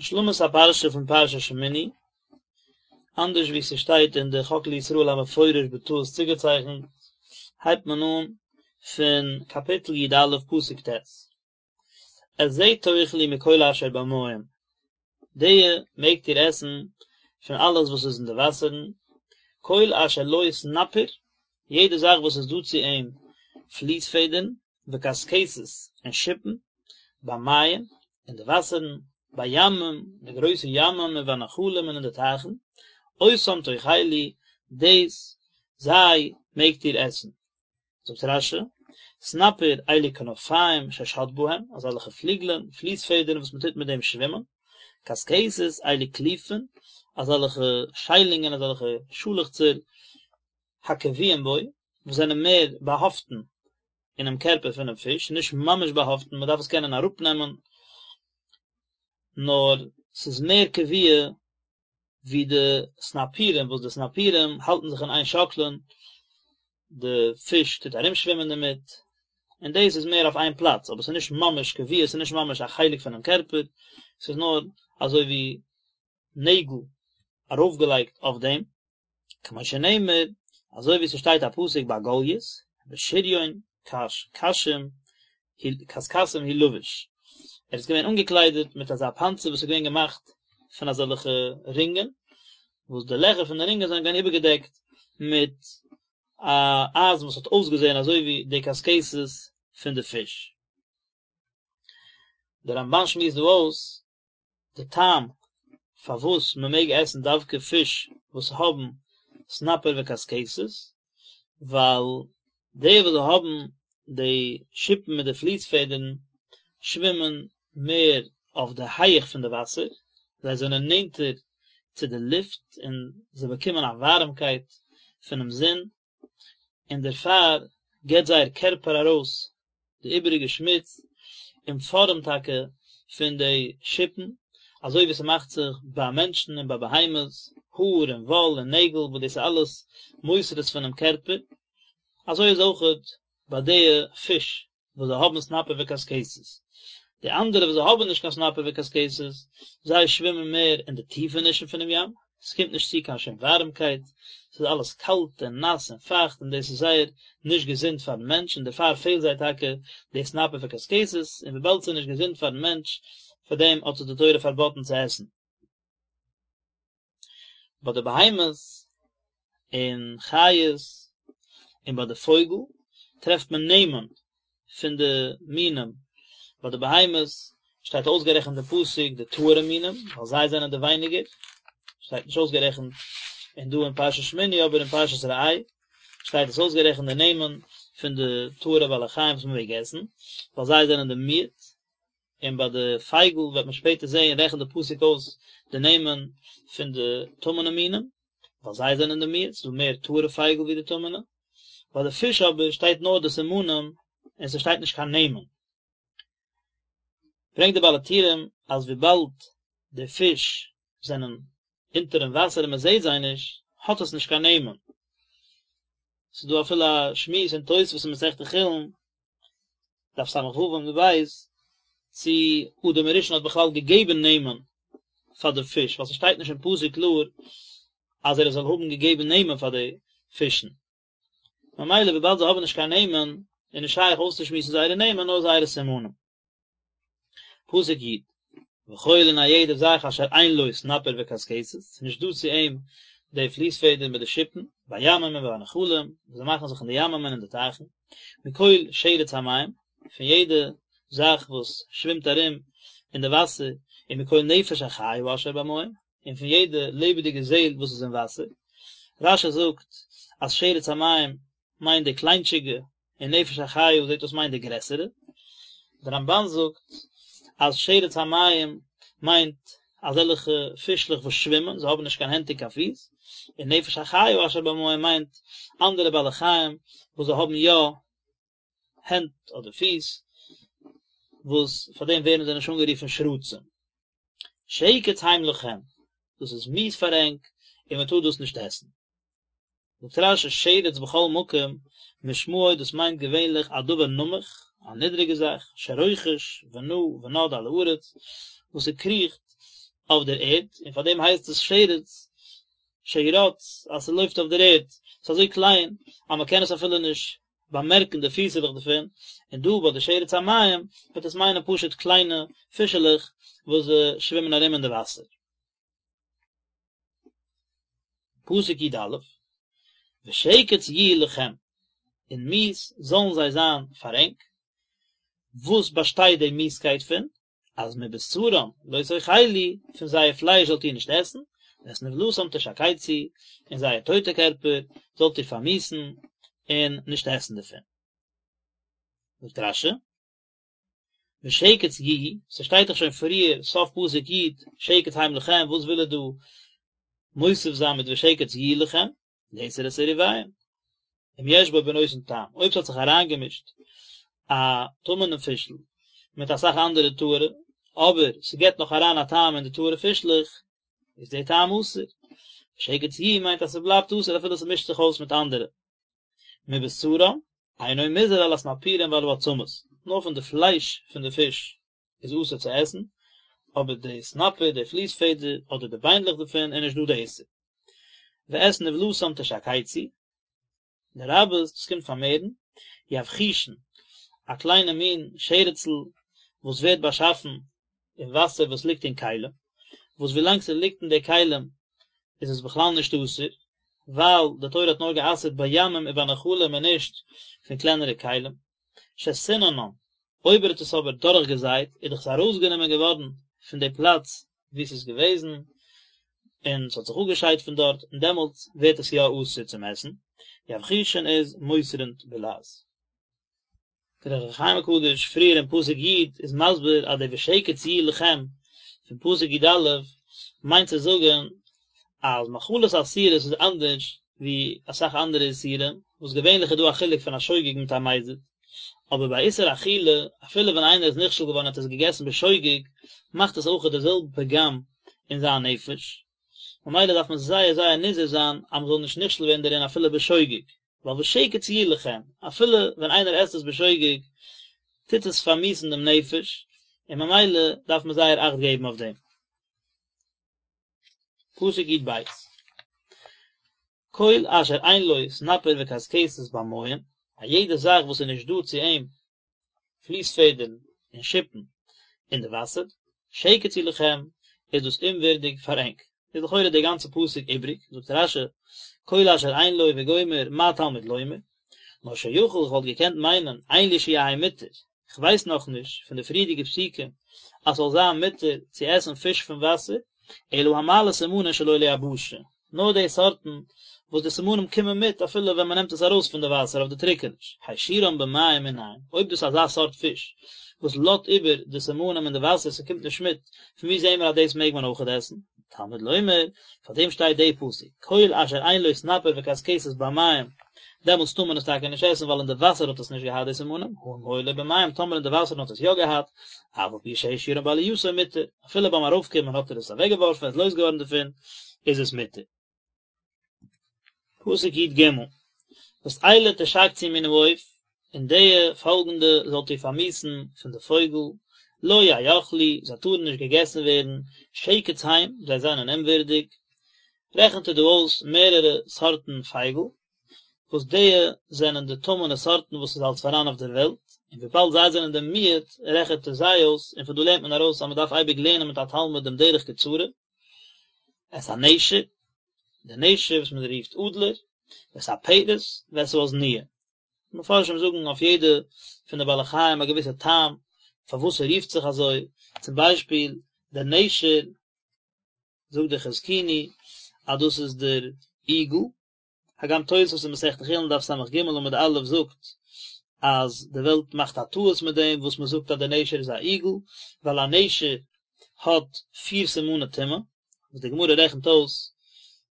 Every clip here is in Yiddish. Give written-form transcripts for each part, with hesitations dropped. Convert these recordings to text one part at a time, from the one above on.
השלמת הפרשה פון פרשת שמיני, אנדערש ווי ס'שטייט אין די חק לישראל המפורש בטעות צוגעצייכנט, הייבט מען אן פון קאפיטל י א פסוק ט', את זה תאכלו מכל אשר במים, די מעגט איר עסן פון אלעס וואס איז אין די וואסערן, כל אשר לו סנפיר, יעדע זאך וואס איז דא צו אים פליס פעדערן, וקשקשת, און שיפן, במים, אין די וואסערן, בימים, אין די גרויסע ימים, ובנחלים און אין די טייכן, אותם תאכלו, דאס, זיי, מעגט איר עסן. זאגט רש"י, סנפיר אלו כנפיים ששט בהם, אזעלכע פליגלען, פליס פעדערן וואס מען טוט מיט דעם שווימען, קשקשת אלו קליפין, אזעלכע שיילונגען, אזעלכע שאלעכצער, הקבועים בו, וואס זענען מער באהאפטן אינעם קערפער פונעם פיש, נישט ממש באהאפטן, מען דארף עס קענען אראפנעמען, נאר ס'איז מער קבוע ווי די סנפירים, וואס די סנפירים האלטן זיך אין איין שאקלען, די פיש טוט ארומשווימען דערמיט, און דאס איז מער אויף איין פלאץ, אבער ס'איז נישט ממש קבוע, ס'איז נישט ממש א חלק פונעם קערפער, ס'איז נאר אזוי ווי נעגל ארויפגעלייגט אויף דעם. כמו שנאמר, אזוי ווי ס'שטייט א פסוק ביי גלית, בשריון קש קשים קשקשים הוא לבוש, ער איז געווען אנגעקליידעט מיט אזא פאנצער וואס איז געווען געמאכט פון אזעלכע רינגען, וואס די לעכער פון די רינגען זענען געווען איבערגעדעקט מיט א אייזן וואס האט אויסגעזען אזוי ווי די קשקשת פון די פיש. דער רמב"ן שמועסט דא אויס די טעם פארוואס מען מעג עסן דווקא פיש וואס האבן סנפיר וקשקשת, ווייל די וואס האבן די שיפן מיט די פליס פעדערן שווימען מער אויף די הייעך פון די וואסער, זיי זענען נענטער צו די לופט און זיי באקומען א ווארעמקייט פונעם זון, און דערפאר גיבט זייער קערפער ארויס די איבעריגע שמוץ אין פארעם טאקע פון די שיפן, אזוי ווי ס'מאכט זיך ביי מענטשן און ביי בהמות, האר און וואל און נעגל וואס דאס איז אלעס מותרות פונעם קערפער, אזוי איז אויכעט ביי די פיש וואס זיי האבן סנפיר וקשקשת. די אנדערע וואס זיי האבן נישט קיין סנפיר וקשקשת, זיי שווימען מער אין די טיפענישן פונעם ים, עס קומט נישט צו קיין שום ווארעמקייט, עס איז אלעס קאלט און נאס און פייכט און דאס איז זייער נישט געזונט פארן מענטש און דערפאר פעלט זיי טאקע די סנפיר וקשקשת, און וויבאלד עס איז נישט געזונט פארן מענטש, פאר דעם האט עס די תורה פארבאטן צו עסן. ביי די בהמות און חיות און ביי די פויגל טרעפט מען נעמען פון די מינים, ביי די בהמות שטייט אויסגערעכנט אין פסוק די טהור'ע מינים ווייל זיי זענען די ווייניגער, שטייט נישט אויסגערעכנט אין דא אין פרשת שמיני אבער אין פרשת ראה שטייט עס אויסגערעכנט די נעמען פון די טהור'ע בעלי חיים וואס מען מעג עסן ווייל זיי זענען די מיעוט, און ביי די פייגל וועט מען שפעטער זעהן רעכנט די פסוק אויס די נעמען פון די טמא'נע מינים, ווייל זיי זענען די מיעוט, ס'איז דא מער טהור'ע פייגל ווי די טמא'נע, ביי די פיש אבער שטייט נאר די סימנים און ס'שטייט נישט קיין נעמען. ברענגט די בעל הטורים אז וויבאלד די פיש זענען אונטערן וואסער און מ'זעהט זיי נישט, האט עס נישט קיין נעמען. ס'איז דא אפילו א שמועס אין תוספות אין מסכת חולין דף ס"ו עמוד ב', צי אדם הראשון האט בכלל געגעבן נעמען פאר די פיש, ווייל ס'שטייט נישט אין פסוק קלאר אז ער זאל האבן געגעבן נעמען פאר די פישן. ממילא וויבאלד זיי האבן נישט קיין נעמען, איז נישט שייך אויסצושמועסן זייערע נעמען נאר זייערע סימנים. פסוק י', וכל און א יעדע זאך אשר אין לו סנפיר וקשקשת, ס'איז נישט דא צו אים די פליס פעדער מיט די שיפן, בימים ובנחלים, וואס זיי מאכן זיך אין די ימים און אין די טייכן, מכל שרץ המים, פון יעדע זאך וואס שווימט ארום אין די וואסער, און מכל נפש החיה אשר במים, און פון יעדע לעבעדיגע זעל וואס איז אין וואסער. רש"י זאגט אז שרץ המים מיינט די קליינטשיגע און נפש החיה זעט אויס מיינט די גרעסערע. דער רמב"ן זאגט אז שרץ המים מיינט אזעלכע פישלעך וואס שווימען, זיי האבן נישט קיין הענט און קיין פיס, און נפש החיה אשר במים מיינט אנדערע בעלי חיים וואס זיי האבן יא הענט אדער פיס, וואס פאר דעם ווערן זיי נישט אנגערופן שרצים. שקץ הם לכם, דאס איז מיאוס פאר ענק און מען טאר דאס נישט עסן. זאגט רש"י שרץ בכל מקום משמעו דאס מיינט געווענליך א דבר נמוך, א נידריגע זאך, שרוחש ונע ונד על הארץ, וואס ס'קריכט. אויף דער ערד, און פאר דעם הייסט עס שרץ שרץ אז ס'לויפט אויף דער ערד, ס'איז אזוי קליין אז מ'קען עס אפילו נישט באמערקן די פיסעלעך דערפון, און דא ביי די שרץ המים וועט עס מיינען פשוט קליינע פישעלעך וואס שווימען ארום אין די וואסער. פסוק י א, ושקץ יהיו לכם, און מיאוס זאלן זיי זיין פאר ענק, וואס באשטייט די מיאוסקייט פון? אז מבשרם לא תאכלו, פון זייער פלייש זאלט איר נישט עסן, ואת נבלתם תשקצו, און זייער טויטע קערפער זאלט איר פארמיאוסן און נישט עסן דערפון. זאגט רש י, ושקץ יהיו, ס'שטייט דאך שוין פריער סוף פסוק י, שקץ הם לכם, וואס וויל ער דא מוסיף זיין מיט ושקץ יהיו לכם? לאסור את עירוביהם. אם יש בו בנותן טעם, אויב ס'האט זיך אריינגעמישט א טמא'נע פישל מיט אסאך אנדערע טהור'ע, אבער ס'געט נאך אריין א טעם אין די טהור'ע פישלעך, איז דער טעם אסור. ושקץ יהיו מיינט אז ס'בלייבט אסור אפילו ס'מישט זיך אויס מיט אנדערע. מבשרם, אינו מוזהר על הסנפירים ועל העצמות, נאר פון די פלייש פון די פיש איז אסור צו עסן, אבער די סנפיר, די פליס פעדער, אדער די ביינדלעך דערפון איז נישט דא די איסור. ואת נבלתם תשקצו, לרבות, דאס קומט פארמערן, יבחושין, א קליינע מין שרצ'ל וואס ווערט באשאפן אין וואסער וואס ליגט אין כלים, וואס ווילאנג ס'ליגט אין די כלים איז עס בכלל נישט אסור, ווייל די תורה האט נאר גע'אסר'ט בימים ובנחלים און נישט פון קלענערע כלים. שסיננן, אויב ער האט עס אבער דורכגעזייט איז דאך עס ארויסגענומען געווארן פון די פלאץ וואו עס איז געוועזן, און עס האט זיך אפגעשיידט פון דארט, און דעמאלטס ווערט עס יא אסור צום עסן. יבחושין איז מוסרין בלעז. דער אור החיים הקדוש פריער אין פסוק י' איז מסביר אז די ושקץ יהיו לכם פון פסוק י א מיינט צו זאגן אז מאכלות אסורות איז אנדערש ווי אסאך אנדערע איסורים וואס געווענליך איז דא א חילוק פון א שוגג מיט א מזיד אבער ביי איסור אכילה אפילו ווען איינער איז נכשל געווארן און האט עס געגעסן בשוגג מאכט עס אויכעט די זעלבע פגם אין זיין נפש ממילא דארף מען זייער זייער נזהר זיין אז מען זאל נישט נכשל ווערן דערין אפילו בשוגג. ווייל ושקץ יהיו לכם, אפילו ווען איינער עסט עס בשוגג, טוט עס פארמיאוסן דעם נפש, און ממילא דארף מען זייער אכט געבן אויף דעם. פסוק י ב, כל אשר אין לו סנפיר וקשקשת במים, א יעדע זאך וואס איז נישט דא צו אים פליס פעדערן און שיפן אין די וואסער, שקץ הוא לכם, איז דאס אומווערדיג פאר ענק. איז לכאורה די גאנצע פסוק איבריג, זאגט רש י, כל אשר אין לו וגומר מה תלמוד לומר, נאר שיכול איך וואלט געקענט מיינען אין לי שיהא מותר, כ'ווייס נאכנישט פון די פריערדיגע פסוקים אז ס'זאל זיין מותר צו עסן פיש פון וואסער, אלא המעלה סימנין שלא ליבשה, נאר די סארטן וואס די סימנים קומען מיט אפילו ווען מען נעמט עס ארויס פון די וואסער אויף די טריקעניש, השאירם במים מנין, אויב דאס איז אזא סארט פיש וואס לאזט איבער די סימנים אין די וואסער ס'קומט נישט מיט, פון וואו זעהן מיר אז דאס מעג מען אויכעט עסן? תלמוד לומר, פאר דעם שטייט די פסוק, כל אשר אין לו סנפיר וקשקשת במים, דעמאלטס טאר מען עס טאקע נישט עסן ווייל אין די וואסער האט עס נישט געהאט די סימנים, הא אם היו לו במים טאמער אין די וואסערן האט עס יא געהאט, אף על פי שהשאירם בעלייתו מותר, אפילו ביים ארויפקומען האט ער עס אוועקגעווארפן, ער איז לויז געווארן דערפון, איז עס מותר. פסוק י ג, ואת אלה תשקצו מן העוף, און די פאלגנדע זאלט איר פארמיאוסן פון די פויגל, לא יאכלו, זיי טארן נישט געגעסן ווערן, שקץ הם, זיי זענען אומווערדיג. רעכנט ער דא אויס מערערע סארטן פייגל, וואס די זענען די טמא'נע סארטן וואס איז אלס פאראן אויף דער וועלט, און וויבאלד זיי זענען די מיעוט, רעכנט ער זיי אויס, און פון דא לערנט מען ארויס אז מען דארף אייביג לערנען מיט א תלמיד דעם דרך קצרה, את הנשר, די נשר וואס מען רופט אדלער, ואת הפרס, ואת העזניה. מפרשים זאגן אויף יעדע פון די בעלי חיים א געוויסע טעם פארוואס ער רופט זיך אזוי, צום ביישפיל דער נשר, זאגט דער חזקוני אז דאס איז דער איגל, הגם תוספות אין מסכת חולין דף סג עמוד א' זאגט אז די וועלט מאכט א טעות מיט דעם וואס מען זאגט אז דער נשר איז א איגל, ווייל א נשר האט פיר סימני טומאה, וואס די גמרא רעכנט אויס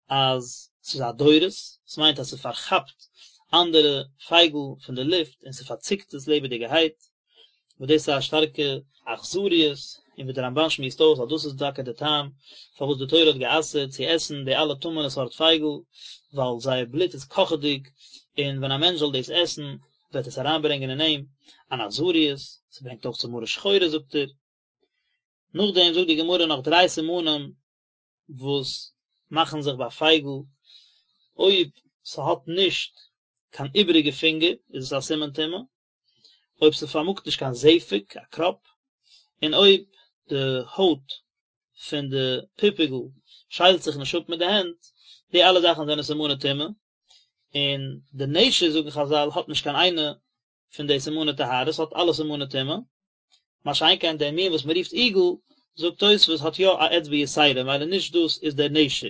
אז ס'איז א דורס, ס'מיינט אז ס'פארכאפט אנדערע פייגל פון די לופט און ס'פארציקט עס לעבעדיגערהייט, וואס דאס איז א שטארקע אכזריות, און ווי דער רמבן שמועסט אויס אז דאס איז טאקע די טעם פארוואס די תורה האט גע'אסר'ט צו עסן די אלע טמא'נע סארט פייגל, ווייל זייער בלוט איז קאכעדיג, און ווען א מענטש זאל דאס עסן וועט עס אריינברענגען אין אים אן אכזריות, ס'ברענגט אויך צו מרה שחורה זאגט ער. נאכדעם זאגט די גמרא נאך דריי סימנים וואס מאכן זיך ביי פייגל, אויב ס'האט נישט קיין איבעריגע פינגער איז עס א סימן טומאה, אויב ס'פארמאגט נישט קיין זפק, א קראפ, און אויב די הויט פון די פופיגל שיילט זיך נישט אפ מיט די הענט, די אלע זאכן זענען סימני טומאה, און די נשר זאגן חזל האט נישט קיין איינע פון די סימני טהרה, ס'האט אלע סימני טומאה, מה שאין כן דער מין וואס מ'רופט איגל, זאגט תוספות האט יא א אצבע יתירה, ממילא נישט דאס איז דער נשר.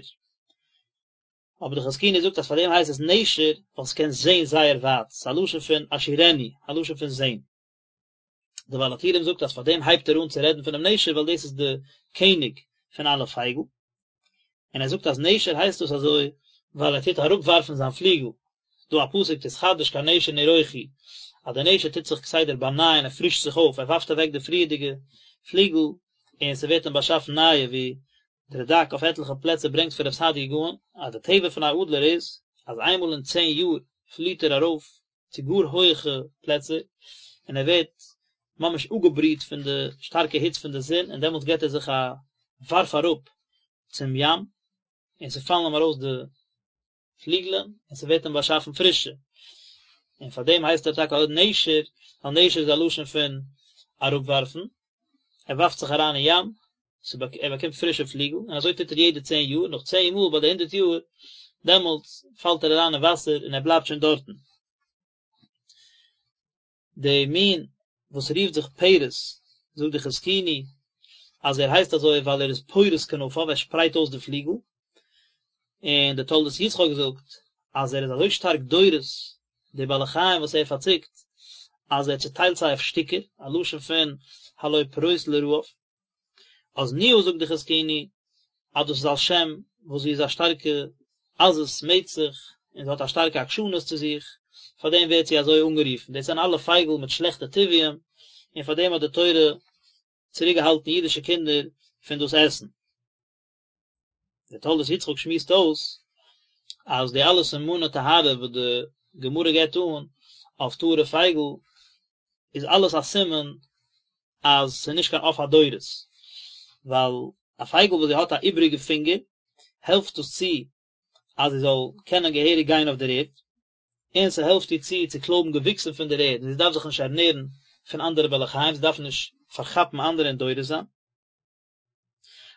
אבער די חזקוני זאגט אז פאר דעם הייסט עס נשר ווייל ס'קען זעהן זייער ווייט, ס'איז א לשון פון אשורנו, א לשון פון זעהן. דער בעל הטורים זאגט אז פאר דעם הייבט ער אן צו רעדן פונעם נשר ווייל דאס איז די קעניג פון אלע פייגל, און ער זאגט אז נשר הייסט דאס אזוי ווייל ער טוט אראפווארפן זיין פליגל, ס'דא א פסוק תתחדש כנשר נרוחי, אז דער נשר טוט זיך כסדר באנייען ער פרישט זיך אויף, ער ווארפט אוועק די פריערדיגע פליגל און ס'ווערט אים באשאפן נייע, ווי דער רד"ק אויף עטליכע פלעצער ברענגט פון רב סעדיה גאון אז די טבע פון א אדלער איז אז איינמאל אין צען יאר פליעט ער ארויף צו גאר הויעכע פלעצער און ער ווערט ממש אפגעבריט פון די שטארקע היץ פון די זון און דעמאלטס געט ער זיך א ווארף אראפ צום ים און ס'פאלן אים ארויס די פליגלען און ס'ווערט אים באשאפן פרישע, און פאר דעם הייסט ער טאקע אויך נשר, ווייל נשר איז א לשון פון אראפווארפן, ער ווארפט זיך אריין אין ים, ער באקומט פרישע פליגל, און אזוי טוט ער יעדע צען יאר, נאך צען מאל ביי די הונדערט יאר, דעמאלטס פאלט ער אריין אין וואסער און ער בלייבט שוין דארטן. די מין וואס רופט זיך פרס, זאגט די חזקוני אז ער הייסט אזוי ווייל ער איז פורס כנפיו, ער שפרייט אויס די פליגל, און די תולדות יצחק זאגט אז ער איז אזוי שטארק דורס די בעלי חיים וואס ער פארצוקט אז ער צוטיילט זיי אויף שטיקער, א לשון פון הלא פרוס לרעב. אזנוה זאגט די חזקוני אז דאס איז על שם וואס זי איז א שטארקע עזות מצח און זי האט א שטארקע עקשנות צו זיך, פאר דעם ווערט זי אזוי אנגערופן, דאס זענען אלע פייגל מיט שלעכטע טבעיים, און פאר דעם האט די תורה צוריק געהאלטן אידישע קינדער פון דאס עסן. דער תולדות יצחק שמועסט אויס אז די אלע סימני טהרה וואס די גמרא געבט אן אויף טהור'ע פייגל איז אלעס א סימן אז ס'איז נישט קיין עוף הדורס, ווייל א פייגל וואס זי האט א איבריגע פינגער העלפט דאס צו אז זי זאל קענען געהעריג גיין אויף דער ערד, און ס'העלפט איר צו צו קלויבן געוויקסן פון דער ערד, און זי דארף זיך נישט ערנערן פון אנדערע בעלי חיים, זי דארף נישט פארכאפן אנדערע און דורס זיין.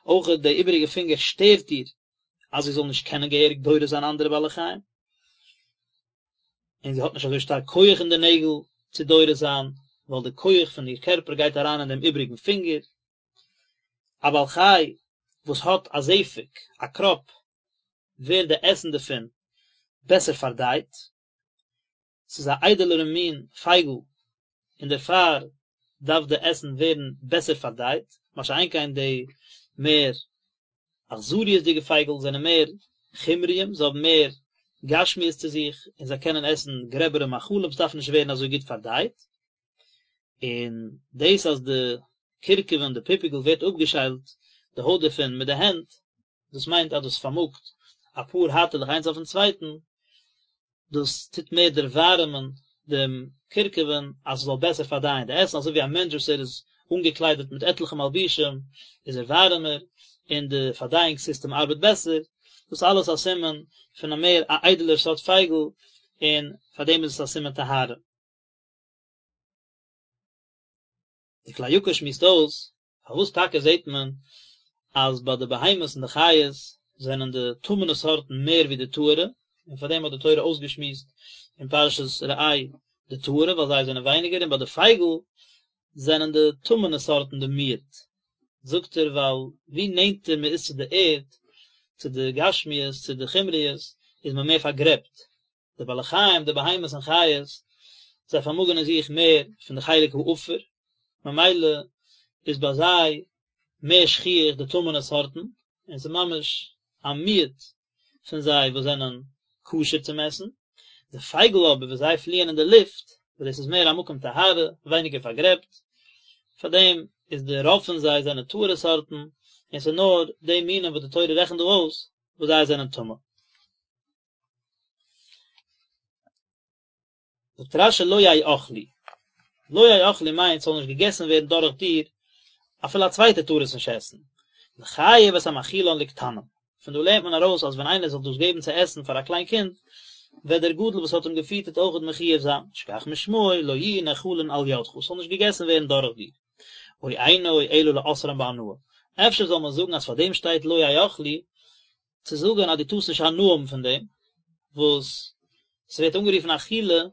אויך די איבעריגע פינגער שטערט איר אז זי זאל נישט קענען געהעריג דורס זיין אנדערע בעלי חיים, און זי האט נישט אזוי שטארק כח אין די נעגל צו דורס זיין, ווייל די כח פון איר קערפער גייט אריין אין דעם איבעריגן פינגער. א בעל חי וואס האט א זפק, א קראפ, ווערט די עסן דערפון בעסער פארדייט, ס'איז א איידעלערע מין פייגל און דערפאר דארף די עסן ווערן בעסער פארדייט, מה שאין כן די מער אכזריות'דיגע פייגל זענען מער חומריים, זיי האבן מער גשמיות צו זיך און זיי קענען עסן גרעבערע מאכלים, ס'דארף נישט ווערן אזוי גוט פארדייט. און דאס אז די קורקבן, די פופיגל ווערט אפגעשיילט די הויט דערפון מיט די הענט, דאס מיינט אז דאס פארמאגט אפאר הייטעלעך איינס אויפן צווייטן, דאס טוט מער דערווארעמען דעם קורקבן אז עס זאל בעסער פארדייען די עסן, אזוי ווי א מענטש וואס ער איז אנגעקליידעט מיט עטליכע מלבושים איז ער ווארעמער און די פארדייאונג סיסטעם ארבעט בעסער, דאס אלעס א סימן פון א מער א איידעלער סארט פייגל און פאר דעם איז עס א סימן טהרה. די כלי יקר שמועסט אויס פארוואס טאקע זעט מען אז ביי די בהמות און די חיות זענען די טמא'נע סארטן מער ווי די טהור'ע, און פאר דעם האט די תורה אויסגעשמועסט אין פרשת ראה די טהור'ע ווייל זיי זענען ווייניגער און ביי די פייגל זענען די טמא'נע סארטן די מיעוט, זאגט ער ווייל ווי נענטער מען איז צו די ערד, צו די גשמיות, צו די חומריות, איז מען מער פארגרעבט, די בעלי חיים, די בהמות און חיות, זיי פארמאגן אין זיך מער פון די חלק העפר, ממילא איז ביי זיי מער שכיח די טמא'נע סארטן, און ס'איז ממש א מיעוט פון זיי וואס זענען כשר צום עסן. די פייגל אבער וואס זיי פליען אין די לופט, וואס דאס איז מער א מקום טהרה, ווייניגער פארגרעבט, פאר דעם איז די רוב פון זיי זענען טהור'ע סארטן, און ס'איז נאר די מינים וואס די תורה רעכנט דא אויס וואס זיי זענען טמא. זאגט רש"י לא יאכלו, לא יאכלו מיינט ס'זאל נישט געגעסן ווערן דורך דיר. אפילו א צווייטער טאר עס נישט עסן, לחייב את המאכילן לקטנים, פון דא לערנט מען ארויס אז ווען איינער זאל דאס געבן צו עסן פאר א קליין קינד, וועט דער גדול וואס האט אים געפיטערט אויכעט מחויב זיין, שכך משמעו לא יהיו נאכלין על ידך, ס'זאל נישט געגעסן ווערן דורך דיר. או אינו אלא לאוסרן בהנאה, אפשר זאל מען זאגן אז פאר דעם שטייט לא יאכלו, צו זאגן אז דו טארסט נישט הנאה האבן פון דעם, וואס ס'ווערט אנגערופן אכילה,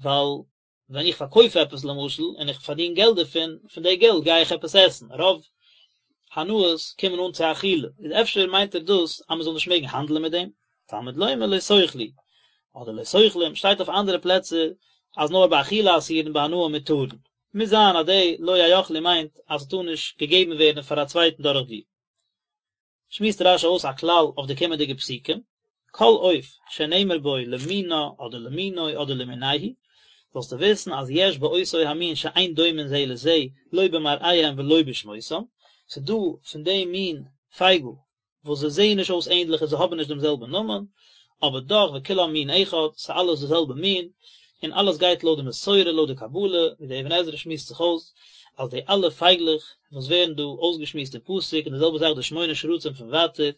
ווייל ווען איך פארקויף עפעס למשל און איך פארדין געלט דערפון, פון די געלט גיי איך עפעס עסן, רוב הנאות קומען אן צו אכילה, איז אפשר מיינט ער דאס אז מ'זאל נישט מעגן האנדלען מיט דעם, תלמוד לומר לא תאכלו, אדער לא תאכלום, שטייט אויף אנדערע פלעצער אז נאר באכילה אסורין בהנאה מותרין, מוז זיין אז די לא יאכלו מיינט אז ס'טאר נישט געגעבן ווערן פאר א צווייטן דורך דיר. שמועסט רש"י אויס א כלל אויף די קומענדיגע פסוקים, כל עוף שנאמר בו למינה אדער למינו אדער למינהו, זאלסטו וויסן אז יש באותו המין שאין דומין זה לזה לא במראיהם ולא בשמותם, ס'דא פון דעם מין פייגל וואס זיי זעען נישט אויס ענדליך און זיי האבן נישט דעם זעלבן נאמען, אבער דאך וכולם מין אחד, ס'איז אלעס די זעלבע מין, און אלעס גייט לויט די מסורה לויט די קבלה, ווי דער אבן עזרא שמועסט זיך אויס, אז די אלע פייגלעך וואס ווערן דא אויסגעשמועסט אין פסוק, און די זעלבע זאך די שמונה שרצים פון ווייטער,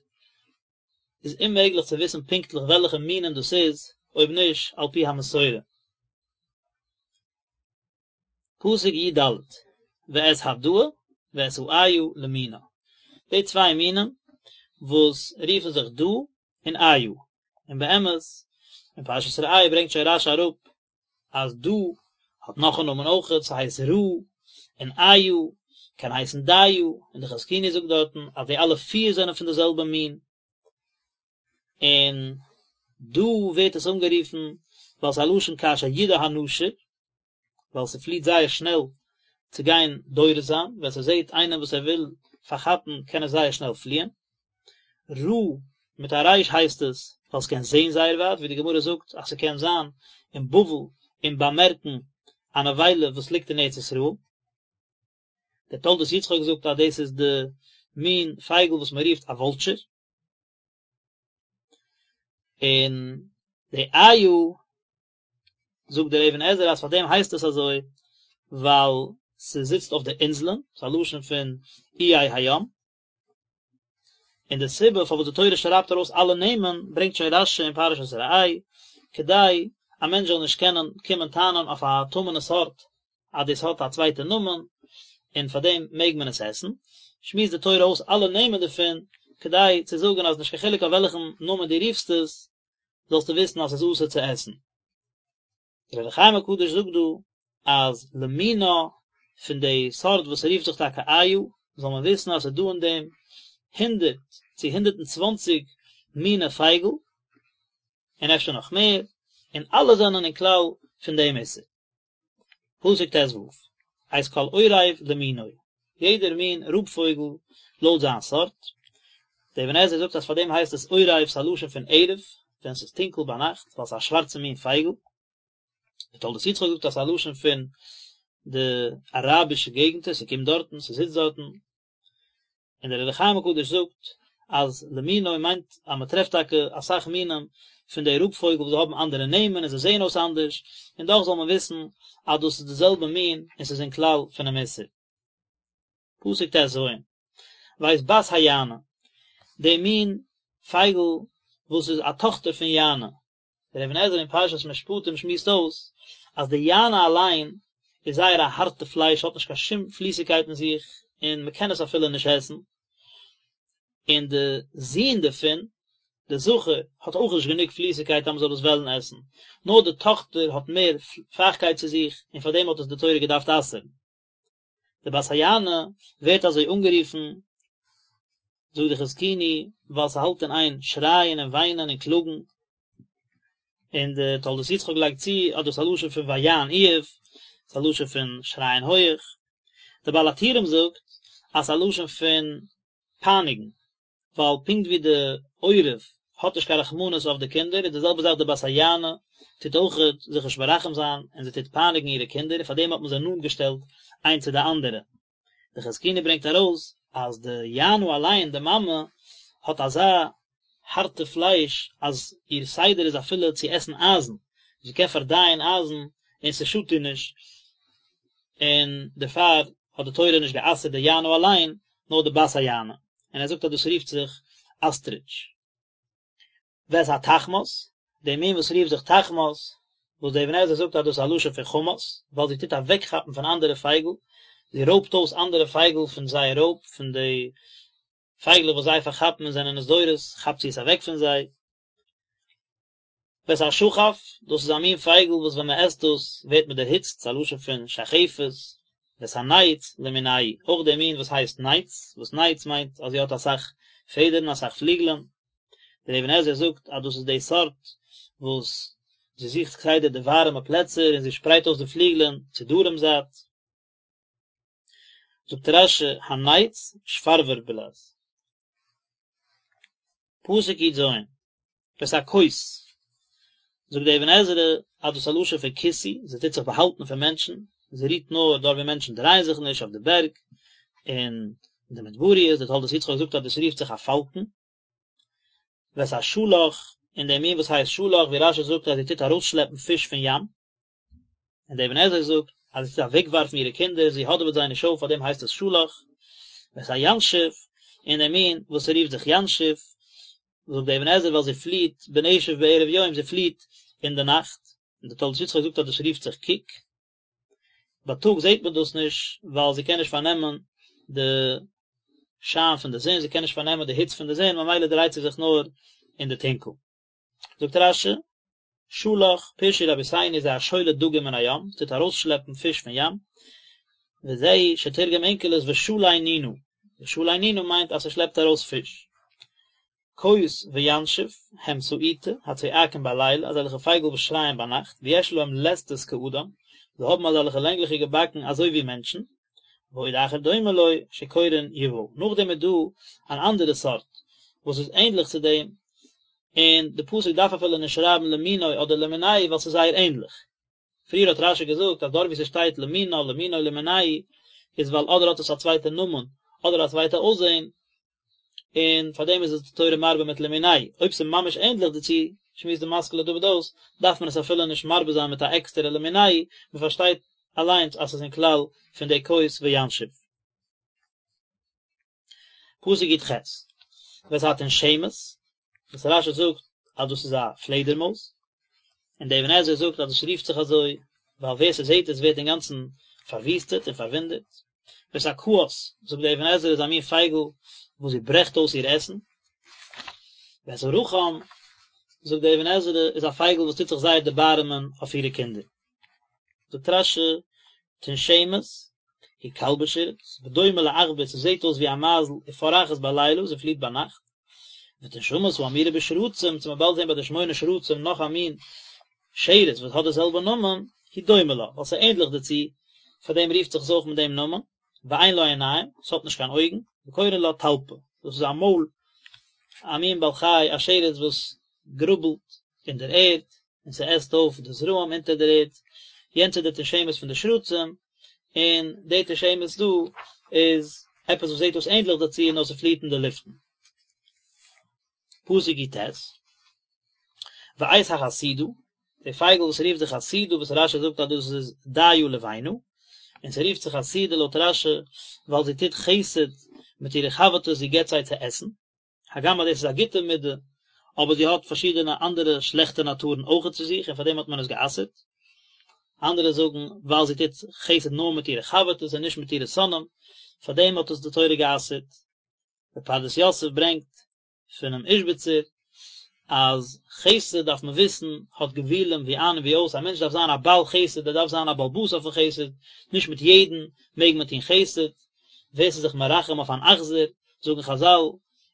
איז אוממעגליך צו וויסן פונקטליך וועלכע מינים דאס איז, אויב נישט על פי המסורה. פסוק י"ד, ואת הדאה ואת האיה למינה, די צוויי מינים וואס רופן זיך דאה און איה, און באמת אין פרשת ראה ברענגט שוין רש"י אראפ אז דאה האט נאך א נאמען אויכעט, ס'הייסט ראה, און איה קען הייסן דיה, און די חזקוני זאגט דארטן אז די אלע פיר זענען פון די זעלבע מין, און דא ווערט עס אנגערופן ווייל ס'איז א לשון כאשר ידאה הנשור, ווייל ס'פליט זייער שנעל צו גיין דורס זיין, ווען ס'זעט איינעם וואס ער וויל פארכאפן קען עס זייער שנעל פליען. ראה מיט א ריש הייסט עס ווייל ס'קען זען זייער ווייט, ווי די גמרא זאגט אז ס'קען זיין אין בבל און באמערקן א נבילה וואס ליגט אין ארץ ישראל. דער תולדות יצחק זאגט אז דאס איז די מין פייגל וואס מען רופט א וואלטשער. און די איה זאגט דער אבן עזרא אז פאר דעם הייסט עס אזוי ווייל ס'זיצט אויף די אינזלען, ס'איז א לשון פון איי הים. און די סיבה פארוואס די תורה שרייבט ארויס אלע נעמען ברענגט שוין רש"י אין פרשת ראה, כדי א מענטש זאל נישט קענען קומען טענה'ן אויף א טמא'נע סארט אז דאס האט א צווייטע נאמען און פאר דעם מעג מען עס עסן, שמועסט די תורה אויס אלע נעמען דערפון, כדי צו זאגן אז נישט קיין חילוק אויף וועלכן נאמען דו רופסט עס, זאלסטו וויסן אז עס איז אסור צו עסן. דער אור החיים הקדוש זאגט דא אז למינה פון די סארט וואס רופט זיך טאקע איה, זאל מען וויסן אז עס איז דא אין דעם הונדערט צו 120 מיני פייגל, און אפשר נאך מער, און אלע זענען אין כלל פון דעם איסור. פסוק ט"ו, את כל עורב למינו, יעדער מין רויב פויגל לויט זיין סארט, דער אבן עזרא זאגט אז פאר דעם הייסט עס עורב, ס'איז א לשון פון ערב, ווען ס'איז טונקל ביינאכט, ווייל ס'איז א שווארצע מין פייגל. דער תולדות יצחק זאגט אז ס'איז א לשון פון די אראבישע געגנטער, ס'קומט דארטן, ס'זיצט דארטן. און דער אור החיים הקדוש זאגט אז למינו מיינט אז מען טרעפט טאקע אסאך מינים פון די רויב פויגל וואס זיי האבן אנדערע נעמען און זיי זעען אויס אנדערש, און דאך זאל מען וויסן אז דאס איז די זעלבע מין און ס'איז אין כלל פונעם איסור. פסוק ט"ז, ואת בת היענה, די מין פייגל וואס איז א טאכטער פון יענה, דער אבן עזרא אין פרשת משפטים שמועסט אויס אז די יענה אליין איז זייער א הארטע פלייש האט נישט קיין שום פליסיגקייט אין זיך און מען קען עס אפילו נישט עסן, און די זון דערפון, די זכר, האט אויך נישט גענוג פליסיגקייט אז מען זאל עס וועלן עסן, נאר די טאכטער האט מער פייכקייט צו זיך און פאר דעם האט עס די תורה געדארפט אסר'ן. די בת היענה ווערט אזוי אנגערופן, זאגט די חזקוני, ווייל ס'האלט אין איין שרייען און וויינען און קלאגן, און די תולדות יצחק לייגט צו אז דאס איז א לשון פון ויען איוב, ס'איז א לשון פון שרייען הויעך, די בעל הטורים זאגט אז ס'איז א לשון פון פייניגן, ווייל פונקט ווי די עורב האט נישט קיין רחמנות אויף די קינדער איז די זעלבע זאך די בת היענה טוט אויכעט זיך נישט מרחם זיין און זי טוט פייניגן אירע קינדער און פאר דעם האט מען זיי נאנט געשטעלט איינס צו די אנדערע. די חזקוני ברענגט ארויס אז די יענה אליין די מאמע האט אזא הארטע פלייש אז איר סדר איז אפילו צו עסן אייזן, זי קען פארדייען אייזן און ס'שאדט איר נישט, און דערפאר. האט די תורה נישט גע'אסר'ט די יענה אליין, נאר די בת היענה, און ער זאגט אז דאס רופט זיך אסטריטש. ואת התחמס, די מין וואס רופט זיך תחמס, וואס דער אבן עזרא זאגט אז דאס איז א לשון פון חמס, ווייל זי טוט אוועקכאפן פון אנדערע פייגל, זי רויבט אויס אנדערע פייגל פון זייער רויב, פון די פייגלעך וואס זיי פארכאפן און זענען עס דורס, כאפט זי עס אוועק פון זיי. ואת השחף, דאס איז א מין פייגל וואס ווען מען עסט דאס ווערט מען דערהיצט, ס'איז א לשון פון שחפת, ואת הנץ למינהו, אויך דער מין וואס הייסט נץ, וואס נץ מיינט אז זי האט אסאך פעדערן, אסאך פליגלען, דער אבן עזרא זאגט אז דאס איז די סארט וואס זי זוכט כסדר די ווארעמע פלעצער און זי שפרייט אויס די פליגלען צו דרום זייט. זאגט רש"י הנץ שפרבר בלע"ז. פסוק י"ז, ואת הכות, זאגט דער אבן עזרא אז דאס איז א לשון פון כיסוי, זי טוט זיך באהאלטן פון מענטשן, זי רוהט נאר דארט ווי מענטשן דרייען זיך נישט, אויף די בערג, און אין די מדבריות, דער תולדות יצחק זאגט אז דאס רופט זיך א פאלקן. ואת השלך, און דער מין וואס הייסט שלך, ווי רש"י זאגט אז זי טוט ארויסשלעפן פיש פון ים. און דער אבן עזרא זאגט אז זי טוט אוועקווארפן אירע קינדער, זי האדעוועט זיי נישט אויף, פארדעם הייסט עס שלך. ואת הינשוף, און דער מין וואס רופט זיך ינשוף, זאגט דער אבן עזרא ווייל זי פליעט בנשף בערב יום, זי פליעט אין די נאכט, און דער תולדות יצחק זאגט אז דאס רופט זיך קוק, בייטאג זעט מען דאס נישט ווייל זי קען נישט פארנעמען די שיין פון די זון, זי קען נישט פארנעמען די היץ פון די זון, ממילא דרייט זי זיך נאר אין די טונקל. זאגט רש"י, שלך, פירשו רבותינו זה השולה דגים מן הים, עס טוט ארויסשלעפן פיש פון ים, וזהו שתרגם אונקלוס ושלי נינא, ושלי נינא מיינט אז ס'שלעפט ארויס פיש. קות וינשוף, הם סעיטה, הצועקים בלילה, אזעלכע פייגל וואס שרייען ביינאכט, ויש להם לסתות כאדם, זיי האבן אזעלכע לענגליכע באקן אזוי ווי מענטשן, ועוד אחר דומה לו, שקורין יובל. נאכדעם איז דא אן אנדערע סארט וואס איז ענדליך צו דעם, און די פסוק דארף אפילו נישט שרייבן למינו אדער למינהו ווייל ס'איז זייער ענדליך. פריער האט רש"י געזאגט אז דארט וואו ס'שטייט למינה למינו למינהו איז ווייל אדער האט עס א צווייטע נאמען אדער א צווייטע אויסזען, און פאר דעם איז עס די תורה מרבה מיט למינהו, אויב ס'איז ממש ענדליך דערצו, שמועסט די משכיל לדוד אויס, דארף מען עס אפילו נישט מרבה זיין מיט א עקסטערע למינהו, מ'פארשטייט אליינס אז ס'איז אין כלל פון די קות וינשוף. פסוק י"ח, ואת התנשמת, וואס רש"י זאגט אז דאס איז א פלעדערמויז, און דער אבן עזרא זאגט אז דאס רופט זיך אזוי ווייל ווער ס'זעט עס ווערט אינגאנצן פארוויסטעט און פארוואונדערט. ואת הקאת, זאגט דער אבן עזרא איז א מין פייגל וואס זי ברעכט אויס איר עסן. ואת הרחם, זאגט דער אבן עזרא איז א פייגל וואס טוט זיך זייער דערבארעמען אויף אירע קינדער. זאגט רש"י, תנשמת, היא כלבא שרץ, ודומה לעכבר, ס'זעט אויס ווי א מייזל, ופורחת בלילה, זי פליט ביינאכט. ותנשמת האמורה בשרצים, וועט מען באלד זען ביי די שמונה שרצים נאך א מין שרץ וואס האט די זעלבע נאמען, היא דומה לה, ווייל ס'איז ענדליך דערצו, פאר דעם רופט זיך עס אויך מיט דעם נאמען, ואין לה עיניים, ס'האט נישט קיין אויגן, וקורין לה טלפא, דאס איז א מויל, א מין בעל חי, א שרץ וואס גראבלט אין דער ערד, און ס'עסט אויף די זרעים אונטער דער ערד, יענץ איז די תנשמת פון די שרצים, און די תנשמת דא איז עפעס וואס זעט אויס ענדליך דערצו נאר ס'פליעט אין די לופטן. פסוק י"ט, ואת החסידה, די פייגל וואס רופט זיך חסידה וואס רש"י זאגט אז דאס איז דיה לבנה, און ס'רופט זיך חסידה לויט רש"י ווייל זי טוט חסד מיט אירע חבר'טעס זי געבט זיי צו עסן, הגם אז דאס איז א גוטע מידה, אבער זי האט פארשידענע אנדערע שלעכטע נאטורן אויכעט צו זיך און פאר דעם האט מען עס גע'אסר'ט. אנדערע זאגן, ווייל זי טוט חסד נאר מיט אירע חבר'טעס און נישט מיט אירע שונאים, פאר דעם האט עס די תורה גע'אסר'ט. דער פרדס יוסף ברענגט פונעם איזשביצער אז חסד דארף מען וויסן האט גבולים ווי איין און ווי אויס, א מענטש דארף זיין א בעל חסד, ער דארף זיין א בעל הבית אויפן חסד, נישט מיט יעדן מעג מען טון חסד, ווער ס'איז זיך מרחם אויף אן אכזר, זאגן חז"ל,